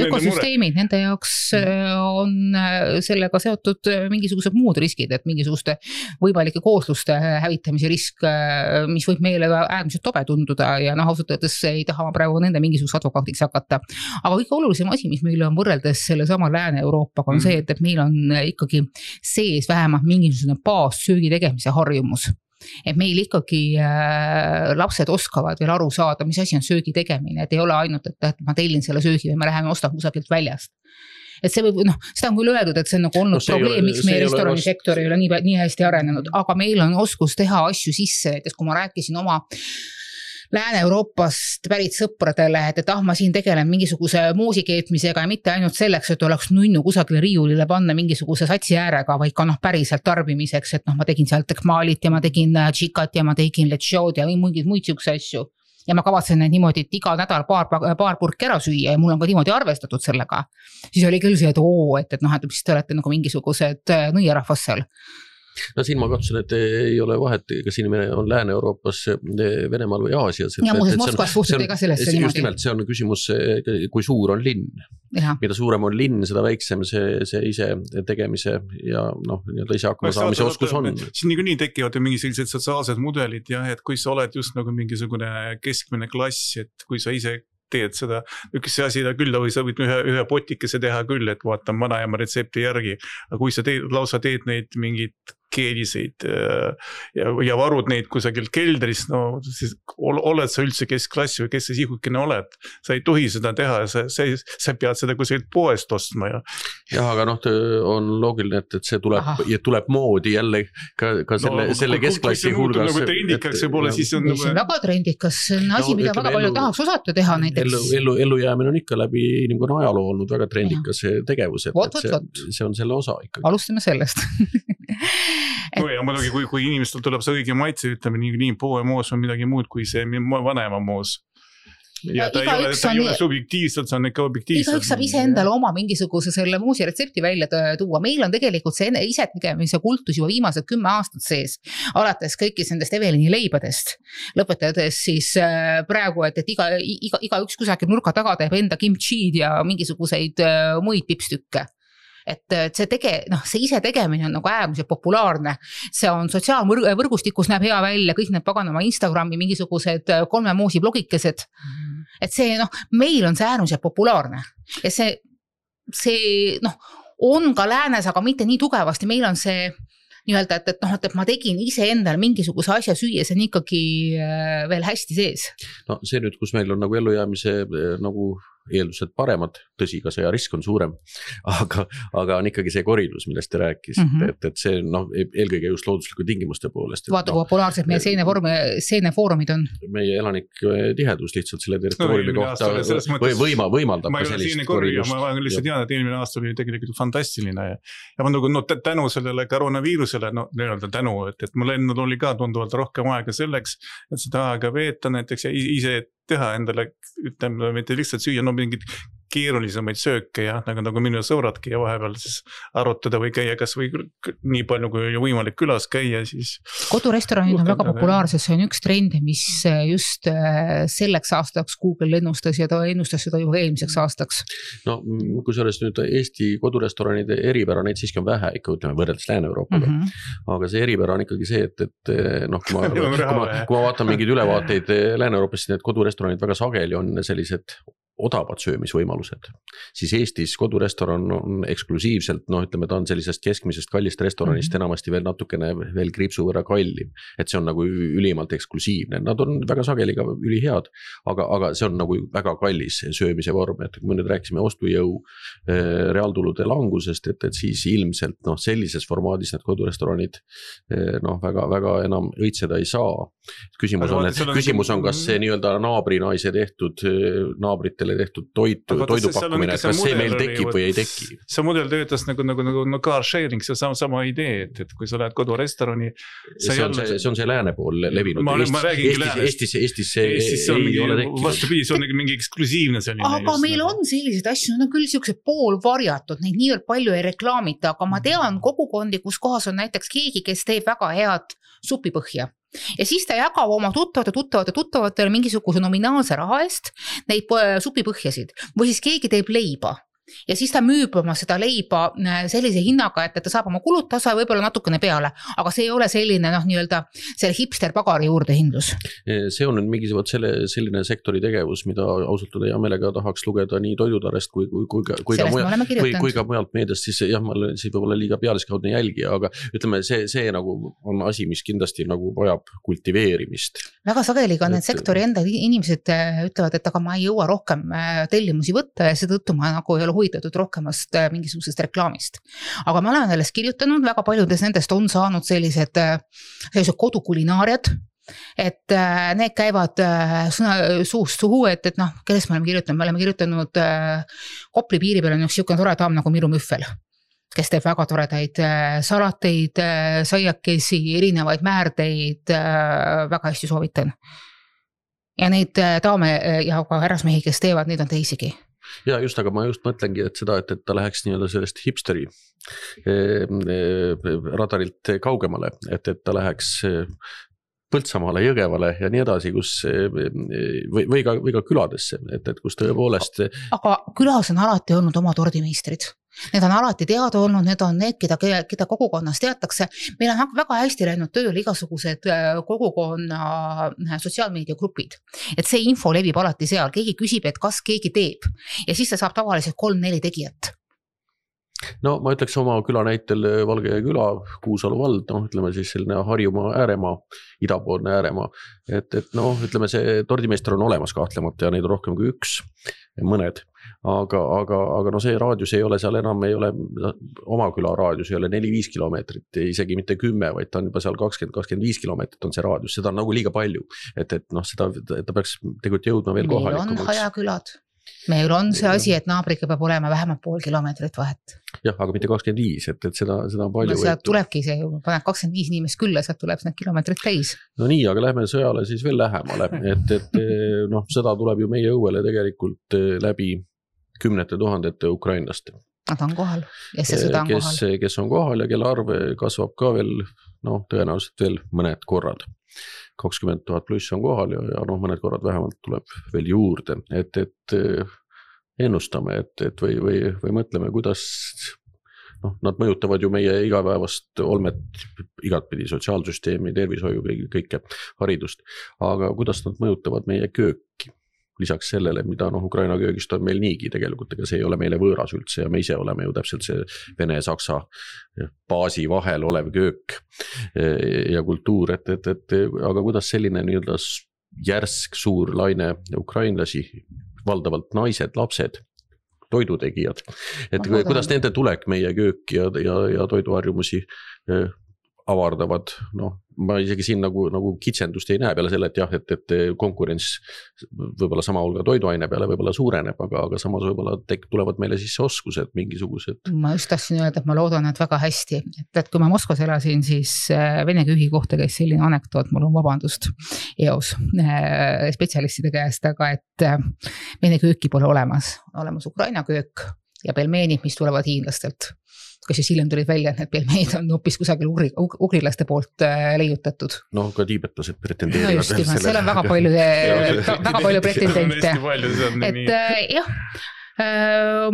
ökosüsteemid, nende jaoks on sellega seotud mingisugused muud riskid, et mingisuguste võimalike koosluste hävitamise risk, mis võib meile äärmiselt tobe tunduda ja ausalt öeldes ei taha ma praegu nende mingisuguse advokaatiks hakata. Aga kõige olulisem asi, mis meil on võrreldes selle sama Lääne-Euroopaga on see, et meil on ikkagi sees vähemalt mingisugune baassöögi tegemise harjumus. Et meil ikkagi lapsed oskavad veel aru saada, mis asi on söögi tegemine, et ei ole ainult, et ma tellin selle söögi või me läheme ostan kusagilt väljast. Et see võib, seda on küll öeldud, et see on nagu olnud probleem, miks meie restoranisektor ei ole nii hästi arenenud, aga meil on oskus teha asju sisse, et kui ma rääkisin oma Lääne-Euroopast pärit sõpradele, et ma siin tegelen mingisuguse muusikeetmisega ja mitte ainult selleks, et oleks nunnu kusagile riiulile panna mingisuguse satsi äärega, vaid ka päriselt tarbimiseks, et ma tegin seal tekmaalit ja ma tegin tšikat ja ma tegin lechod ja mingeid muid siukse asju. Ja ma kavatsen need niimoodi, et iga nädal paar purki ära süüa ja mul on ka niimoodi arvestatud sellega. Siis oli küll see, et mis te olete nagu mingisugused nõiarahvas seal. No siin ma katsun, et ei ole vahet, kas inimene on Lääne-Euroopas, Venemaal või Aasias. Ja muuses Moskvas suhtute ka sellesse niimoodi. Just nimelt, see on küsimus, kui suur on linn. Mida suurem on linn, seda väiksem see ise tegemise ja ise hakkama saamise oskus on. Siin nii tekivad mingi sellised sotsiaalsed mudelid, jah, et kui sa oled just nagu mingisugune keskmine klass, et kui sa ise teed seda, üks asi küll, või sa võid ühe potikese teha küll, et vaatan vanaema retsepti järgi, aga kui sa lausa teed neid mingid keeliseid ja varud neid kusagil keldris, no siis oled sa üldse keskklass või kes sa sihukene oled, sa ei tohi seda teha, sa pead seda kusagilt poest ostma jah, aga on loogiline, et see tuleb moodi jälle ka selle keskklassi hulgas. Nagu trendikas võib-olla, siis on see on väga trendikas, see on asi, mida väga palju tahaks osata teha näiteks. Ellujäämine on ikka läbi inimkonna ajaloo olnud väga trendikas tegevus, et see on selle osa ikkagi. Alustame sellest ja muidugi, kui inimestel tuleb see õige maitse, ütleme nii poemoos või midagi muud kui see vanema moos. Ja ta ei ole subjektiivselt, see on ikka objektiivselt. Igaüks saab ise endale oma mingisuguse selle muusi retsepti välja tuua. Meil on tegelikult see ise tegemise kultus juba viimased 10 aastat sees. Alates kõikis nendest Evelini leibadest. Lõpetades siis praegu, et igaüks kusagil nurka taga teeb enda kimchi'd ja mingisuguseid muid pipstükke. Et see ise tegemine on nagu äärmiselt populaarne. See on sotsiaalvõrgustikus näeb hea välja, kõik need paganama Instagrami mingisugused 3 moosi blogikesed. Et see, meil on see äärmiselt populaarne. Ja see on ka läänes, aga mitte nii tugevasti. Meil on see nii-öelda, et ma tegin ise endale mingisuguse asja süüa, see on ikkagi veel hästi sees. No see nüüd, kus meil on nagu ellujäämise nagu eeldused paremad, tõsi, ka see risk on suurem, aga on ikkagi see koridus, millest te rääkisite, et see eelkõige just loodusliku tingimuste poolest. Vaata, kui populaarsed meie seenefoorumid on. Meie elanik tihedus lihtsalt selle territooriumi kohta võimaldab ka sellist koridust. Ma lihtsalt tean, et eelmine aasta oli tegelikult fantastiline ja ma tänu sellele koroonaviirusele, tänu, et mul enne oli ka tunduvalt rohkem aega selleks, et seda aega veeta näiteks ja ise teha endale, ütleme, mitte lihtsalt süüa, mingid keerulisemaid sööke ja nagu minu sõbradki ja vahepeal siis arutada või käia kas või nii palju kui võimalik külas käia, siis kodurestoranid on väga populaarsed, see on üks trend, mis just selleks aastaks Google ennustas ja ta ennustas seda juba eelmiseks aastaks. No kui sellest nüüd Eesti kodurestoranide eripära, neid siiski on vähe ikka, ütleme, võrreldes Lääne-Euroopaga, aga see eripära on ikkagi see, et kui ma vaatan mingeid ülevaateid Lääne-Euroopast, need kodurestoranid väga sageli on sellised odavad söömisvõimalused, siis Eestis kodurestoran on eksklusiivselt, ütleme, ta on sellisest keskmisest kallist restoranist enamasti veel natukene veel kriipsu võrra kallim, et see on nagu ülimalt eksklusiivne, nad on väga sageli ka ülihead, aga see on nagu väga kallis söömise vorm, et kui me nüüd rääkisime ostujõu reaaltulude langusest, et siis ilmselt sellises formaadis need kodurestoranid väga enam õitseda ei saa. Küsimus on, kas see nii-öelda naabrinaise tehtud naabrite tehtud toidupakkumine, et kas see meil tekib või ei teki. See mudel töötas nagu car sharing, see on sama idee, et kui sa lähed kodurestorani. See on see lääne pool levinud. Eestis see ei ole tekkinud. Vastupidi, see on mingi eksklusiivne selline. Aga meil on sellised asju, on küll siuksed poolvarjatud, neid nii palju ei reklaamita, aga ma tean kogukondi, kus kohas on näiteks keegi, kes teeb väga head supipõhja. Ja siis ta jagab oma tuttavatele mingisuguse nominaalse raha eest neid supipõhjasid või siis keegi teeb leiba. Ja siis ta müüb oma seda leiba sellise hinnaga, et ta saab oma kulud tasa ja võib-olla natukene peale, aga see ei ole selline nii-öelda selle hipster pagari juurde hindlus. See on nüüd mingisugune selline sektori tegevus, mida ausalt hea meelega tahaks lugeda nii toidutarest kui ka mujalt meediast, siis jah, ma olen siis võib-olla liiga pealiskaudne jälgija, aga ütleme, see nagu on asi, mis kindlasti nagu vajab kultiveerimist. Väga sageli ka need sektori enda inimesed ütlevad, et aga ma ei jõua rohkem tellimusi võtta ja seetõttu ma nagu ei ole huvitatud rohkemast mingisugusest reklaamist. Aga me oleme sellest kirjutanud, väga paljudes nendest on saanud sellised kodukulinaariad, et need käivad suust suhu, et kellest me oleme kirjutanud Kopli piiri peal on üks siukene tore daam nagu Miru Müffel, kes teeb väga toredaid salateid, saiakesi, erinevaid määrdeid, väga hästi soovitan. Ja neid daame ja ka härrasmehi, kes teevad, neid on teisigi. Ja just, aga ma just mõtlengi, et seda, et ta läheks nii-öelda sellest hipsteri radarilt kaugemale, et ta läheks Põltsamaale, Jõgevale ja nii edasi, kus või ka küladesse, et kus tõepoolest. Aga külas on alati olnud oma tordimeistrid. Need on alati teada olnud, need on need, keda kogukonnas teatakse. Meil on väga hästi läinud tööle igasugused kogukonna sotsiaalmeediagrupid. Et see info levib alati seal, keegi küsib, et kas keegi teeb. Ja siis ta saab tavaliselt 3-4 tegijat. No ma ütleks oma küla näitel Valge küla, Kuusalu vald, ütleme siis selline Harjumaa ääremaa, idapoolne ääremaa, et ütleme see tordimeister on olemas kahtlemata ja neid on rohkem kui üks, mõned, aga see raadius ei ole seal enam, ei ole oma küla raadius, ei ole 4-5 kilomeetrit, isegi mitte 10, vaid ta on juba seal 20-25 kilomeetrit on see raadius, seda on nagu liiga palju, et seda ta peaks tegelikult jõudma veel kohalikumaks. Meil on hajakülad. Meil on see asi, et naabriga peab olema vähemalt 0,5 kilomeetrit vahet. Jah, aga mitte 25, et seda on palju. No sealt tulebki see, paned 25 inimest külla, sealt tuleb need kilomeetrid täis. No nii, aga lähme sõjale siis veel lähemale, et seda tuleb ju meie õuele tegelikult läbi 10 000 ukrainlaste. Nad on kohal ja see sõda on kohal. Kes on kohal ja kelle arv kasvab ka veel, tõenäoliselt veel mõned korrad. 20 000 pluss on kohal ja mõned korrad vähemalt tuleb veel juurde, et ennustame, et või mõtleme, kuidas nad mõjutavad ju meie igapäevast olmet igatpidi, sotsiaalsüsteemi, tervishoiu, kõike haridust, aga kuidas nad mõjutavad meie kööki? Lisaks sellele, mida Ukraina köögist on meil niigi tegelikult, ega see ei ole meile võõras üldse ja me ise oleme ju täpselt see Vene-Saksa baasi vahel olev köök ja kultuur, aga kuidas selline nii-öelda järsk suur laine ukrainlasi, valdavalt naised, lapsed, toidutegijad, et kuidas nende tulek meie köök ja toiduharjumusi avardavad, ma isegi siin nagu kitsendust ei näe peale selle, et jah, et konkurents võib-olla sama hulga toiduaine peale võib-olla suureneb, aga samas võib-olla tulevad meile sisse oskused mingisugused. Ma just tahtsin öelda, et ma loodan, et väga hästi, et kui ma Moskvas elasin, siis Vene köögi kohta käis selline anekdoot, mul on vabandust eos spetsialistide käest, aga et Vene kööki pole olemas Ukraina köök ja pelmeenid, mis tulevad hiinlastelt. Kas siis hiljem tulid välja, et need pelmeenid on hoopis kusagil ugrilaste poolt leiutatud. Ka tiibetlased pretendeerivad. Just, seal on väga palju pretendente. Et jah,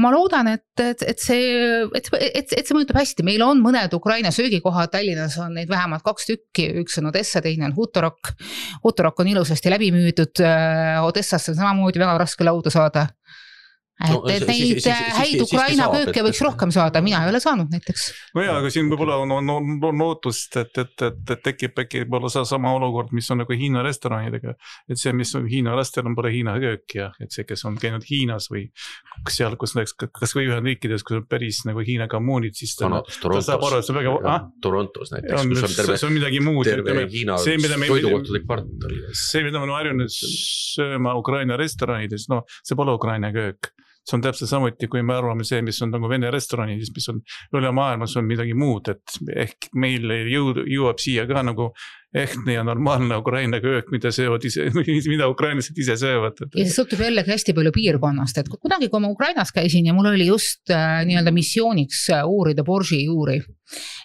ma loodan, et see mõjutab hästi. Meil on mõned Ukraina söögikohad, Tallinnas on neid vähemalt 2 tükki, üks on Odessa, teine on Hutorok. Hutorok on ilusasti läbi müüdud, Odessasse on samamoodi väga raske lauda saada. Et neid häid Ukraina kööke võiks rohkem saada, mina ei ole saanud näiteks. No jaa, aga siin võib-olla on lootust, et tekib äkki sama olukord, mis on nagu Hiina restoranidega, et see, mis on Hiina restoran, pole Hiina köök ja et see, kes on käinud Hiinas või seal, kus kas või Ühendriikides, kus on päris nagu Hiina kommuunid, siis ta saab aru, et see väga... Torontos näiteks, kus on midagi muud. Terve Hiina toidukohtade kvartal. See, mida me oleme harjunud sööma Ukraina restoranides, see pole Ukraina köök. See on täpselt samuti, kui me arvame see, mis on nagu Vene restoranidis, mis on üle maailmas on midagi muud, et ehk meil jõuab siia ka nagu ehtne ja normaalne Ukraina köök, mida ukrainlased ise söövad. Ja see sõltub jällegi hästi palju piirkonnast, et kunagi, kui ma Ukrainas käisin ja mul oli just nii-öelda missiooniks uurida borši juuri,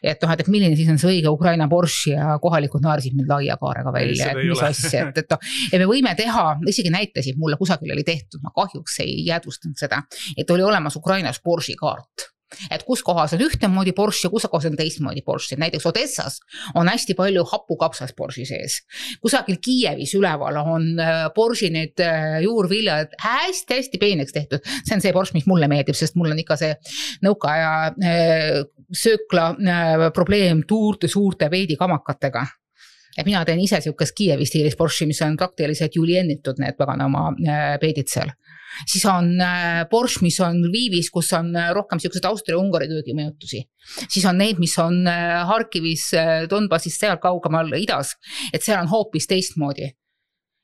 et milline siis on see õige Ukraina borši ja kohalikud naarsid mind laia kaarega välja, et mis asja, et me võime teha, isegi näitasid mulle kusagil oli tehtud, ma kahjuks ei jäädvustanud seda, et oli olemas Ukrainas borši kaart. Et kus kohas on ühtemoodi borš ja kus kohas on teistmoodi borš. Näiteks Odessas on hästi palju hapukapsas borši sees. Kusagil Kiievis üleval on borši need juurviljad hästi peeneks tehtud. See on see borš, mis mulle meeldib, sest mul on ikka see nõukaaja söökla probleem suurte veedikamakatega. Et mina teen ise siukest Kiievi stiilis borši, mis on praktiliselt juliennitud need paganama peedid seal. Siis on borš, mis on Lvivis, kus on rohkem siuksed Austria-Ungari köögimõjutusi. Siis on need, mis on Harkivis, Donbassis, seal kaugemal idas, et seal on hoopis teistmoodi.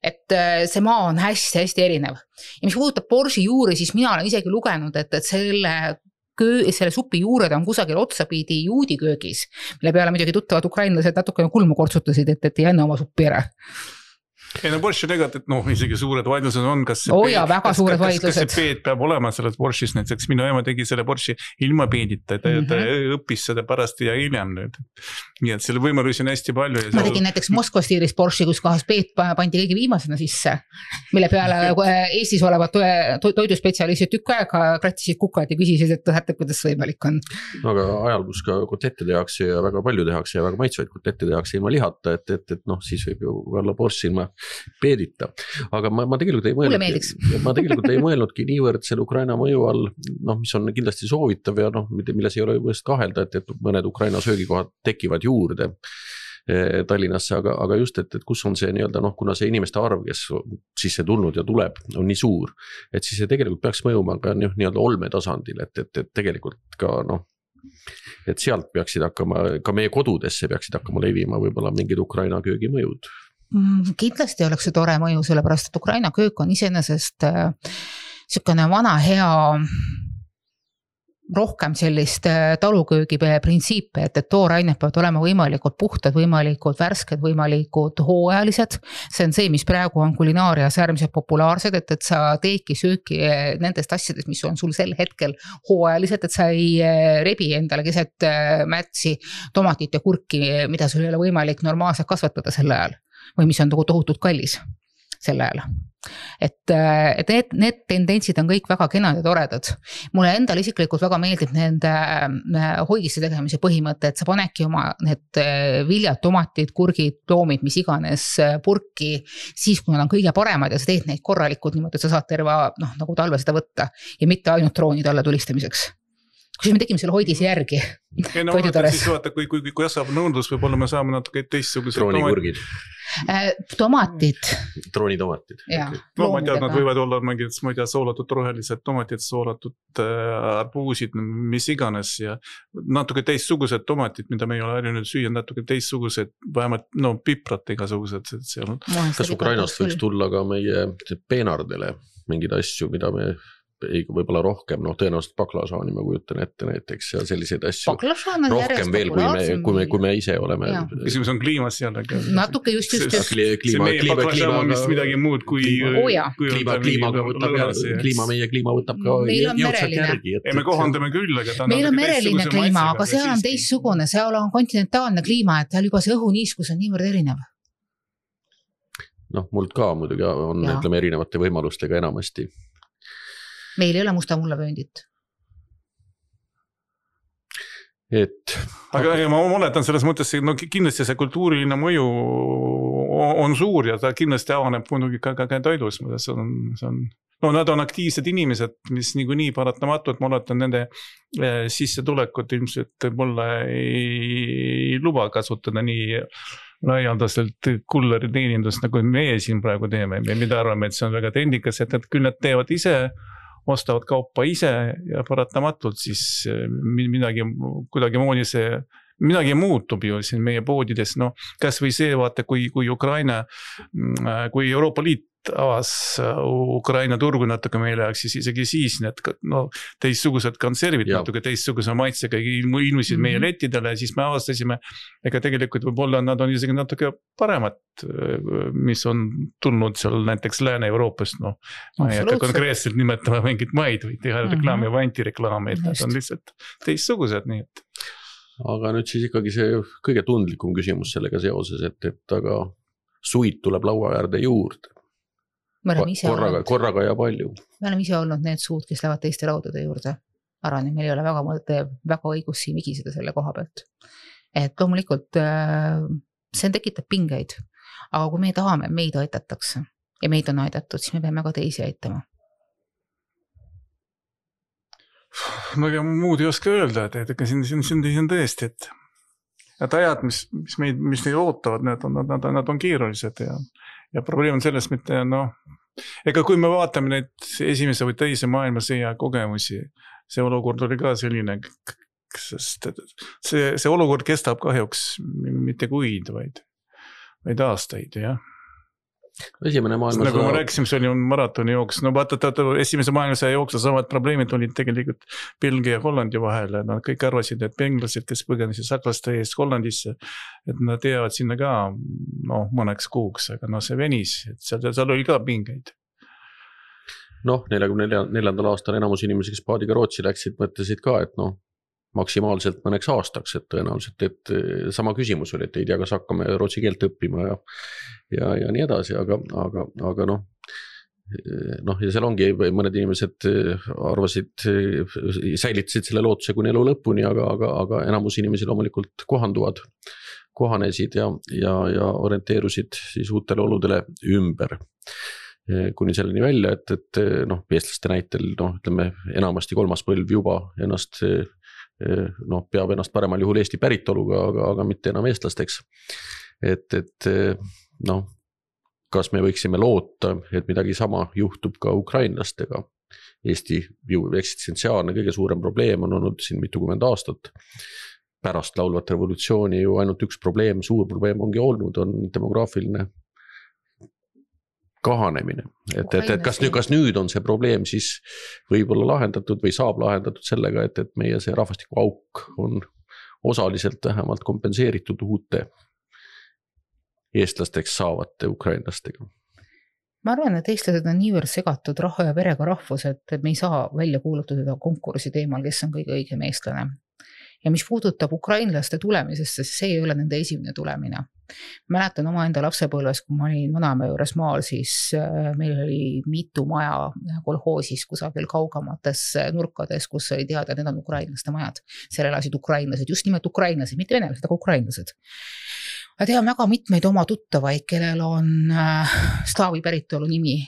Et see maa on hästi erinev. Ja mis puudutab borši juuri, siis mina olen isegi lugenud, et selle supi juured on kusagil otsapidi juudi köögis, mille peale muidugi tuttavad ukrainlased natukene kulmu kortsutasid, et ei enne oma suppi ära. ei no Borschi tegelikult, noh, isegi suured vaidlused on, kas väga suured vaidlused. Kas see peed peab olema selles Borschis, näiteks minu ema tegi selle Borschi ilma peedita, ta õppis seda pärast ja hiljem nüüd. Nii et selle võimalusi on hästi palju. Ma tegin näiteks Moskva stiilis Borschi, kus kohas peed pandi kõige viimasena sisse, mille peale Eestis olevad toiduspetsialistid tükk aega krattisid kukad ja küsisid, et kuidas võimalik on. Aga ajal, kus ka kotette tehakse ja väga palju tehakse ja väga maitsvaid kotette tehakse ilma lihata, et noh, siis võib ju olla Borschi ilma peedita, aga ma tegelikult ei mõelnudki niivõrd selle Ukraina mõju all, noh, mis on kindlasti soovitav ja noh, milles ei ole just kahelda, et mõned Ukraina söögikohad tekivad juurde Tallinnasse, aga just, et kus on see nii-öelda, noh, kuna see inimeste arv, kes sisse tulnud ja tuleb, on nii suur, et siis see tegelikult peaks mõjuma ka nii-öelda olme tasandil, et tegelikult ka noh, et sealt peaksid hakkama, ka meie kodudesse peaksid hakkama levima võib-olla mingid Ukraina köögimõjud. Kindlasti oleks see tore mõju, sellepärast, et Ukraina köök on iseenesest selline vana hea rohkem sellist taluköögi printsiipe, et toorained peavad olema võimalikult puhtad, võimalikult värsked, võimalikult hooajalised. See on see, mis praegu on kulinaarias äärmiselt populaarsed, et sa teedki sööki nendest asjadest, mis on sul sel hetkel hooajalised, et sa ei rebi endale keset märtsi tomatit ja kurki, mida sul ei ole võimalik normaalselt kasvatada sel ajal. Või mis on tohutult kallis sel ajal. Et need tendentsid on kõik väga kenad ja toredad. Mulle endal isiklikult väga meeldib nende hoidiste tegemise põhimõte, et sa panedki oma need viljad, tomatid, kurgid, loomid, mis iganes purki, siis kui nad on kõige paremad ja sa teed neid korralikult niimoodi, et sa saad terve nagu talve seda võtta ja mitte ainult troonid alla tulistamiseks. Kui me tegime selle hoidise järgi. Ei, no siis vaata, kui kasvab nõudlus, võib-olla me saame natuke teistsugused troonikurgid. Tomatid. Troonitomatid. No ma tean, nad võivad olla mingid, ma ei tea, soolatud rohelised tomatid, soolatud arbuusid, mis iganes ja natuke teistsugused tomatid, mida me ei ole harjunud süüa, natuke teistsugused, vähemalt piprad igasugused. Kas Ukrainast võiks tulla ka meie peenardele mingid asju, mida me võib-olla rohkem, noh tõenäoliselt baklažaani ma kujutan ette näiteks ja selliseid asju rohkem veel, kui me ise oleme. Küsimus on kliimas jällegi. Natuke just. See meie baklažaan on vist midagi muud kui meie kliima võtab ka jõudsalt järgi. Me kohandame küll, aga meil on mereline kliima, aga seal on teistsugune, seal on kontinentaalne kliima, et seal juba see õhuniiskus on niivõrd erinev. Noh, muld ka muidugi on, ütleme, erinevate võimalustega enamasti. Meil ei ole musta mullavööndit. Aga ma oletan selles mõttes, no kindlasti see kultuuriline mõju on suur ja ta kindlasti avaneb muidugi ka toidus. No nad on aktiivsed inimesed, mis nii paratamatult, ma oletan nende sissetulekut ilmselt mulle ei luba kasutada nii laialdaselt kulleri teenindust, nagu meie siin praegu teeme. Mida arvame, et see on väga trendikas, et küll nad teevad ise, ostavad kaupa ise ja paratamatult siis midagi muutub ju siin meie poodides. No, kas või see, vaata, kui Ukraina, kui Euroopa Liit avas Ukraina turgu natuke meile, siis isegi siis need teistsugused konservid natuke teistsuguse maitsega ilmusid meie lettidele ja siis me avastasime, ega tegelikult võib-olla nad on isegi natuke paremad, mis on tulnud seal näiteks Lääne-Euroopast, ma ei hakka konkreetselt nimetama mingit maid või teha reklaami või antireklaami, et nad on lihtsalt teistsugused, nii et. Aga nüüd siis ikkagi see kõige tundlikum küsimus sellega seoses, et aga suid tuleb laua äärde juurde. Korraga ja palju. Me oleme ise olnud need suud, kes lähevad teiste laudade juurde. Arvan, et meil ei ole väga õigus siin vigiseda selle koha pealt. Et loomulikult see tekitab pingeid, aga kui me tahame, meid aitatakse ja meid on aidatud, siis me peame ka teisi aitama. No ja muud ei oska öelda, et siin on tõesti, et ajad, mis neid ootavad, nad on keerulised ja probleem on selles mitte, ega kui me vaatame neid esimese või teise maailmasõja kogemusi, see olukord oli ka selline, sest see olukord kestab kahjuks mitte kuid, vaid aastaid, jah. Esimene maailmasõda. Nagu ma rääkisin, see oli maratoni jooks. No vaata, esimese maailmasõja jooksul samad probleemid olid tegelikult Belgia ja Hollandi vahel. Nad kõik arvasid, et benglased, kes põgenesid saklaste eest Hollandisse, et nad jäävad sinna ka mõneks kuuks, aga see venis, et seal oli ka pingeid. 44. aastal enamus inimesi, kes paadiga Rootsi läksid, mõtlesid ka, et maksimaalselt mõneks aastaks, et tõenäoliselt, et sama küsimus oli, et ei tea, kas hakkame rootsi keelt õppima ja nii edasi, aga ja seal ongi mõned inimesed arvasid, säilitasid selle lootuse kuni elu lõpuni, aga enamus inimesi loomulikult kohanesid ja orienteerusid siis uutele oludele ümber. Kuni selleni välja, et eestlaste näitel, ütleme, enamasti kolmas põlv juba ennast peab ennast paremal juhul Eesti päritoluga, aga mitte enam eestlasteks. Kas me võiksime loota, et midagi sama juhtub ka ukrainlastega? Eesti eksistentsiaalne kõige suurem probleem on olnud siin mitukümmend aastat. Pärast laulvat revolutsiooni ju ainult üks probleem, suur probleem ongi olnud, on demograafiline kahanemine. Kas nüüd on see probleem siis võib-olla lahendatud või saab lahendatud sellega, et meie see rahvastiku auk on osaliselt vähemalt kompenseeritud uute eestlasteks saavate ukrainlastega? Ma arvan, et eestlased on niivõrd segatud raha ja verega rahvus, et me ei saa välja kuulutada konkursi teemal, kes on kõige õigem eestlane. Ja mis puudutab ukrainlaste tulemisest, siis see ei ole nende esimene tulemine. Mäletan oma enda lapsepõlves, kui ma olin vanaema juures maal, siis meil oli mitu maja kolhoosis kusagil kaugamates nurkades, kus oli teada, need on ukrainlaste majad. Seal elasid ukrainlased, just nimelt ukrainlased, mitte venelased, aga ukrainlased. Ma tean väga mitmeid oma tuttavaid, kellel on slaavi päritolu nimi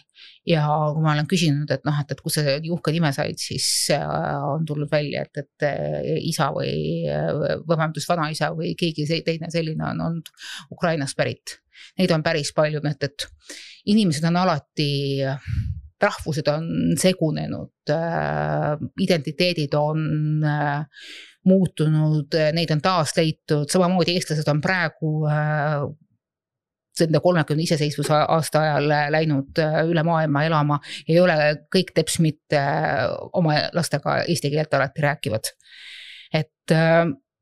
ja kui ma olen küsinud, et kus see uhke nime said, siis on tulnud välja, et isa või vanaisa või keegi teine selline on olnud Ukrainast pärit. Neid on päris palju, et inimesed on alati, rahvused on segunenud, identiteedid on muutunud, neid on taas leitud, samamoodi eestlased on praegu selle 30 iseseisvuse aasta ajal läinud üle maailma elama, ei ole kõik teps mitte oma lastega eesti keelt alati rääkivad. Et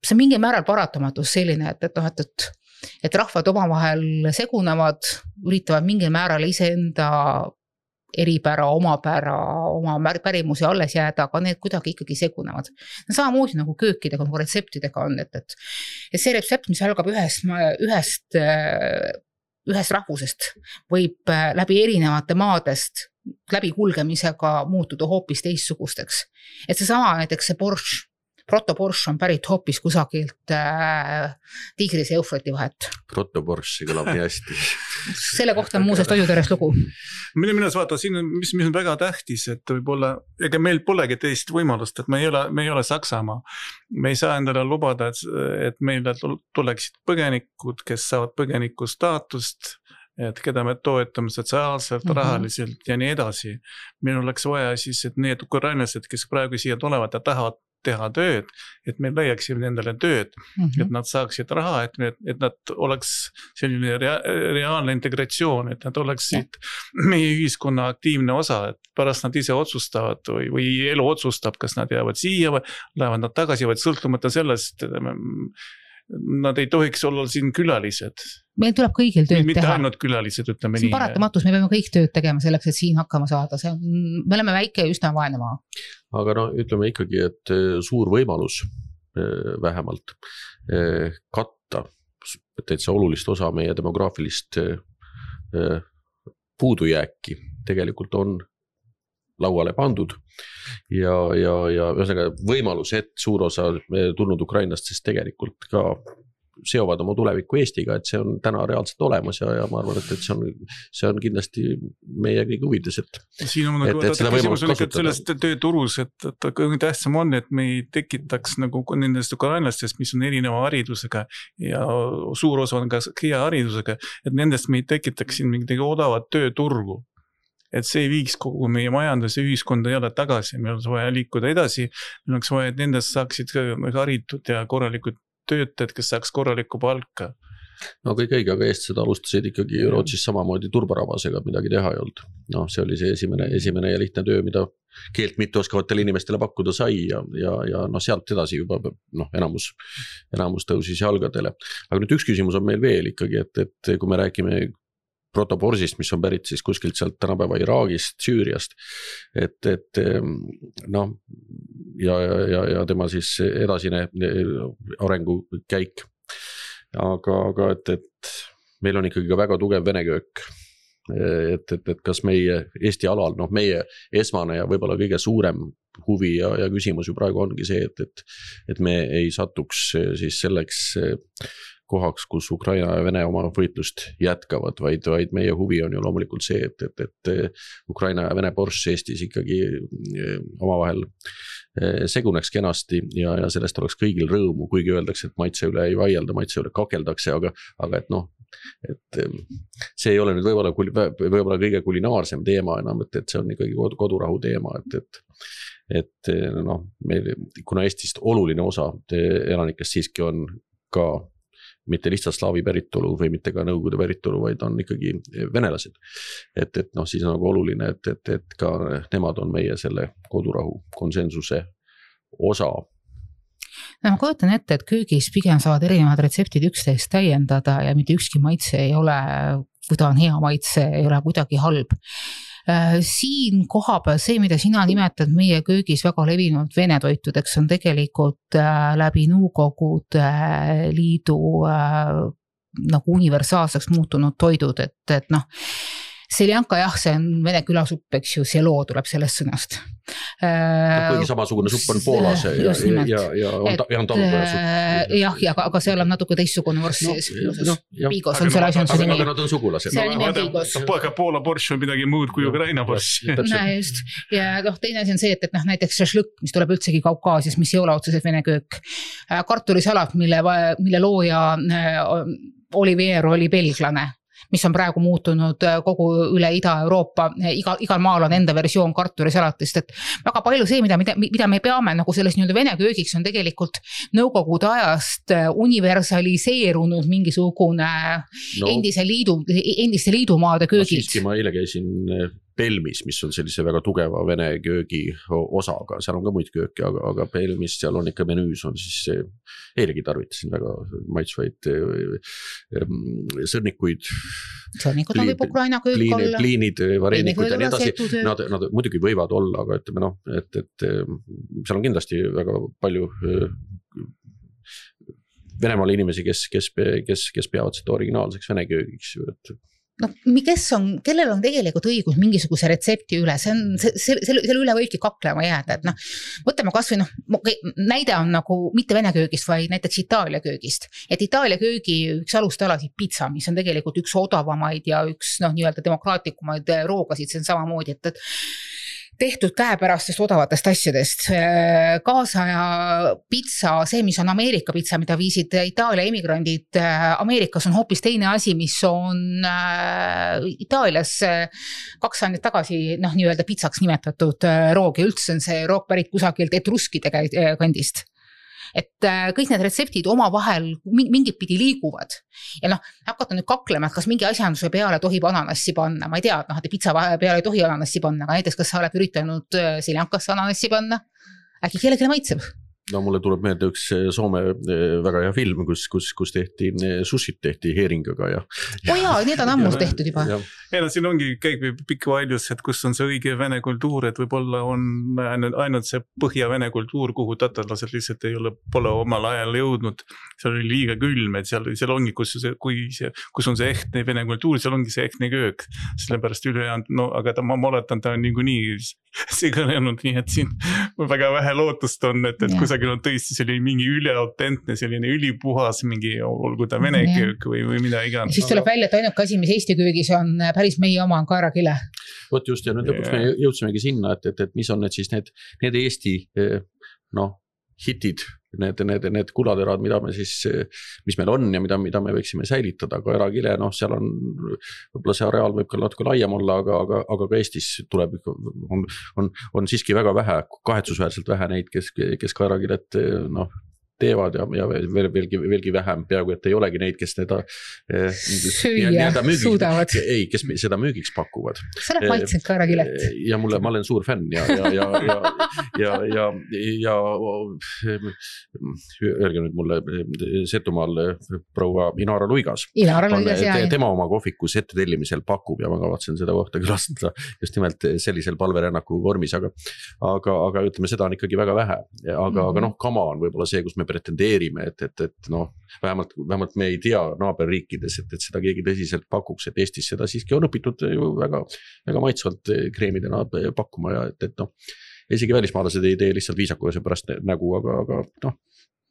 see mingi määral paratamatus selline, et rahvad omavahel segunevad, üritavad mingil määral iseenda eripära, oma pärimusi alles jääda, aga need kuidagi ikkagi segunevad. Samamoodi nagu köökidega, nagu retseptidega on, et see retsept, mis algab ühest rahvusest, võib läbi erinevate maadest läbi kulgemisega muutuda hoopis teistsugusteks. Et see sama näiteks see borš, protoborš on pärit hoopis kusagilt Tigris ja Eufrati vahet. Protoborš, see kõlab nii hästi. Selle kohta on muuseas toiduteres lugu. Minu vaata, siin mis on väga tähtis, et võib-olla, ega meil polegi teist võimalust, et me ei ole Saksamaa. Me ei saa endale lubada, et meile tuleksid põgenikud, kes saavad põgeniku staatust, et keda me toetame sotsiaalselt, rahaliselt ja nii edasi. Meil oleks vaja siis, et need ukrainlased, kes praegu siia tulevad ja tahavad teha tööd, et me leiaksime nendele tööd, et nad saaksid raha, et nad oleks selline reaalne integratsioon, et nad oleksid meie ühiskonna aktiivne osa, et pärast nad ise otsustavad või elu otsustab, kas nad jäävad siia või lähevad nad tagasi, vaid sõltumata sellest, nad ei tohiks olla siin külalised. Meil tuleb kõigil tööd mitte teha. Mitte ainult külalised, ütleme nii. See on paratamatus, me peame kõik tööd tegema selleks, et siin hakkama saada. Me oleme väike ja üsna vaene maa. Aga ütleme ikkagi, et suur võimalus vähemalt katta täitsa olulist osa meie demograafilist puudujääki tegelikult on lauale pandud ja võimalus, et suur osa tulnud Ukrainast, sest tegelikult ka seovad oma tuleviku Eestiga, et see on täna reaalselt olemas ja ma arvan, et see on kindlasti meie kõige huvides, siin on seda võimalust kasutada. Sellest tööturus, et kõige tähtsam on, et me ei tekitaks nagu nendest ukrainlastest, mis on erineva haridusega ja suur osa on ka hea haridusega, et nendest me ei tekitaks siin mingit odavat tööturgu. Et see ei viiks kogu meie majanduse ühiskonda jälle tagasi, meil oleks vaja liikuda edasi, meil oleks vaja, et nendest saaksid haritud ja korralikud töötajad, kes saaks korralikku palka. No kõik õige, aga eestlased alustasid ikkagi Rootsis samamoodi turbarabasega, midagi teha ei olnud. No see oli see esimene ja lihtne töö, mida keelt mitte oskavatele inimestele pakkuda sai ja sealt edasi juba enamus tõusis jalgadele. Aga nüüd üks küsimus on meil veel ikkagi, et kui me räägime protoborsist, mis on pärit siis kuskilt sealt tänapäeva Iraagist, Süüriast, ja tema siis edasine arengukäik. Aga et meil on ikkagi ka väga tugev vene köök, et kas meie Eesti alal, meie esmane ja võib-olla kõige suurem huvi ja küsimus ju praegu ongi see, et me ei satuks siis selleks kohaks, kus Ukraina ja Vene oma võitlust jätkavad, vaid meie huvi on ju loomulikult see, et Ukraina ja Vene borš Eestis ikkagi omavahel seguneks kenasti ja sellest oleks kõigil rõõmu, kuigi öeldakse, et maitse üle ei vaielda, maitse üle kakeldakse, aga et see ei ole nüüd võib-olla kõige kulinaarsem teema enam, et see on ikkagi kodurahu teema, et meil, kuna Eestist oluline osa elanikest siiski on ka mitte lihtsalt slaavi päritolu või mitte ka nõukogude päritolu, vaid on ikkagi venelased. Et siis on nagu oluline, et ka nemad on meie selle kodurahu konsensuse osa. Ma kujutan ette, et köögis pigem saavad erinevad retseptid üksteist täiendada ja mitte ükski maitse ei ole, kui ta on hea maitse, ei ole kuidagi halb. Siin kohapeal see, mida sina nimetad meie köögis väga levinud vene toitudeks, on tegelikult läbi Nõukogude Liidu nagu universaalseks muutunud toidud, et seljanka jah, see on vene külasupp, eks ju, selo tuleb sellest sõnast. Kuigi samasugune supp on Poolas ja on talupojasupp. Jah, aga seal on natuke teistsugune vorst sees. Piigos on selle asjanduse nimi. Aga nad on sugulased. Selle nimi on piigos. Aga Poola borš on midagi muud kui Ukraina borš. Just. Ja teine asi on see, et näiteks šašlõkk, mis tuleb üldsegi Kaukaasias, mis ei ole otseselt vene köök. Kartulisalat, mille looja Olivier oli belglane, mis on praegu muutunud kogu üle Ida-Euroopa, igal maal on enda versioon kartulisalatist, et väga palju see, mida me peame nagu selles nii-öelda vene köögiks, on tegelikult Nõukogude ajast universaliseerunud mingisugune endiste liidumaade köögid. Siiski ma eile käisin Pelmis, mis on sellise väga tugeva vene köögi osaga, seal on ka muid kööki, aga Pelmis seal on ikka menüüs on siis, eilegi tarvitasin väga maitsvaid sõrnikuid. Sõrnikud on võib Ukraina köök olla. Pliinid, varenikud ja nii edasi. Nad muidugi võivad olla, aga ütleme et seal on kindlasti väga palju Venemaal inimesi, kes peavad seda originaalseks vene köögiks, kellel on tegelikult õigus mingisuguse retsepti üle, selle üle võibki kaklema jääda, et võtame kas või näide on nagu mitte vene köögist, vaid näiteks Itaalia köögist, et Itaalia köögi üks alustalasid pizza, mis on tegelikult üks odavamaid ja üks nii-öelda demokraatlikumaid roogasid, see on samamoodi, et tehtud käepärastest odavatest asjadest. Kaasaja pizza, see, mis on Ameerika pizza, mida viisid Itaalia emigrandid Ameerikas, on hoopis teine asi, mis on Itaalias 2 aastat tagasi nii-öelda pizzaks nimetatud roog ja üldse on see roog pärit kusagilt etruskide kandist. Et kõik need retseptid omavahel mingit pidi liiguvad. Ja hakata nüüd kaklema, et kas mingi asjanduse peale tohib ananassi panna. Ma ei tea, et pizza peale ei tohi ananassi panna, aga näiteks kas sa oled üritanud seljankasse ananassi panna? Äkki kellelegi maitseb? No mulle tuleb meelde üks Soome väga hea film, kus tehti sushit tehti heeringaga ja. Need on ammus tehtud juba. Siin ongi käib pikk vaidlus, et kus on see õige vene kultuur, et võib-olla on ainult see põhja-vene kultuur, kuhu tatarlased lihtsalt pole omal ajal jõudnud. Seal oli liiga külm, et seal ongi, kus on see ehtne vene kultuur, seal ongi see ehtne köök. Sellepärast ülejäänud, aga ma oletan, ta on niikuinii sigalenud, nii et siin väga vähe lootust on, et kusagil on tõesti selline mingi üleautentne, selline ülipuhas mingi, olgu ta vene köök või mida iganes. Siis tuleb välja, et ainuke asi, mis Eesti köögis on päris meie oma on kaerakile. Vot just, ja nüüd lõpuks me jõudsimegi sinna, et mis on need siis need Eesti hitid, need kulaterad, mis meil on ja mida me võiksime säilitada, aga erakile, seal on, võib-olla see areaal võib ka natuke laiem olla, aga ka Eestis tuleb, on siiski väga vähe, kahetsusväärselt vähe neid, kes ka erakilet teevad ja veelgi vähem, peaaegu et ei olegi neid, kes seda süüa suudavad. Ei, kes seda müügiks pakuvad. Sa oled maitsenud ka ära Kilet. Ja ma olen suur fänn ja öelge nüüd mulle Setumaal proua Inara Luigas. Tema oma kohvikus ette tellimisel pakub ja ma kavatsen seda kohta külastada just nimelt sellisel palverännaku vormis, aga ütleme, seda on ikkagi väga vähe. Aga kama on võib-olla see, kus me pretendeerime, et vähemalt me ei tea naaberriikides, et seda keegi tõsiselt pakuks, et Eestis seda siiski on õpitud ju väga maitsvalt kreemidena pakkuma ja et isegi välismaalased ei tee lihtsalt viisakuse pärast nägu, aga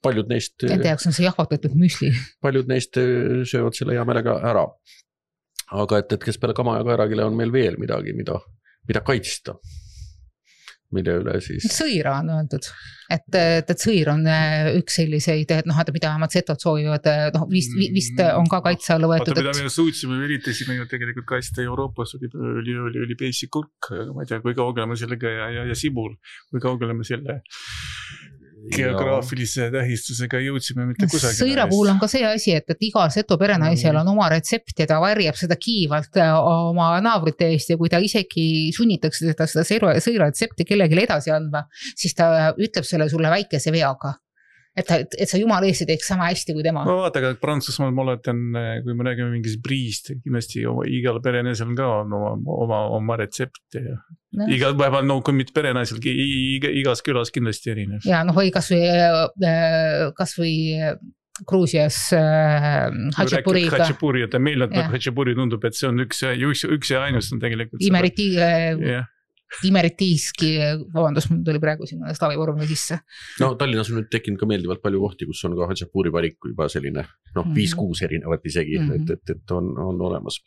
paljud neist... Nende jaoks on see jahvatatud müsli. Paljud neist söövad selle hea meelega ära. Aga et kes peale kama ja kaerakile on meil veel midagi, mida kaitsta. Mille üle siis... Sõira on öeldud, et sõir on üks selliseid, et mida vähemalt setod soovivad, vist on ka kaitse alla võetud. Mida me suutsime, üritasime ju tegelikult kaitsta Euroopas, oli peisi kurk, ma ei tea, kui kaugele me sellega ja sibul, kui kaugele me selle geograafilise tähistusega jõudsime mitte kusagile. Sõira puhul on ka see asi, et igal seto perenaisel on oma retsept ja ta varjab seda kiivalt oma naabrite eest ja kui ta isegi sunnitakse seda sõira retsepti kellelegi edasi andma, siis ta ütleb selle sulle väikese veaga. Et sa jumala eest teeks sama hästi kui tema. Ma vaata, aga Prantsusmaal ma oletan, kui me räägime mingis briist, kindlasti igal perenaisel ka on oma retsept ja igal päeval, kui mitte perenaisel, igas külas kindlasti erinev. Ja või kas või Gruusias Hatšapuriga. Hatšapuri, et meil Hatšapuri tundub, et see on üks ja ainus on tegelikult. Imeritiiski, vabandus, mul tuli praegu sinna slaavivormi sisse. Tallinnas on nüüd tekkinud ka meeldivalt palju kohti, kus on ka Hatšapuri valik juba selline, 5-6 erinevat isegi, et on olemas.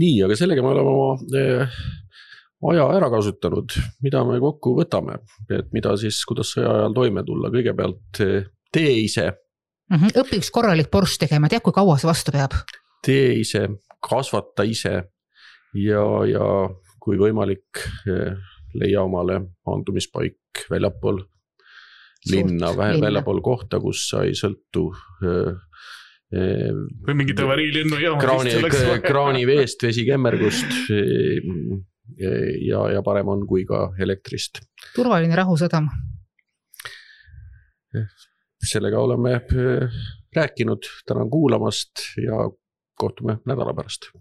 Nii, aga sellega me oleme oma aja ära kasutanud, mida me kokku võtame, et mida siis, kuidas sõja ajal toime tulla. Kõigepealt tee ise. Õpi üks korralik borš tegema, tead, kui kaua see vastu peab? Tee ise, kasvata ise ja kui võimalik leia omale maandumispaik väljapool linna, väljapool kohta, kus sa ei sõltu või mingit avariilinnu kraani veest, vesikemmergust ja parem on kui ka elektrist. Turvaline rahusadam. Sellega oleme rääkinud, tänan kuulamast ja kohtume nädala pärast.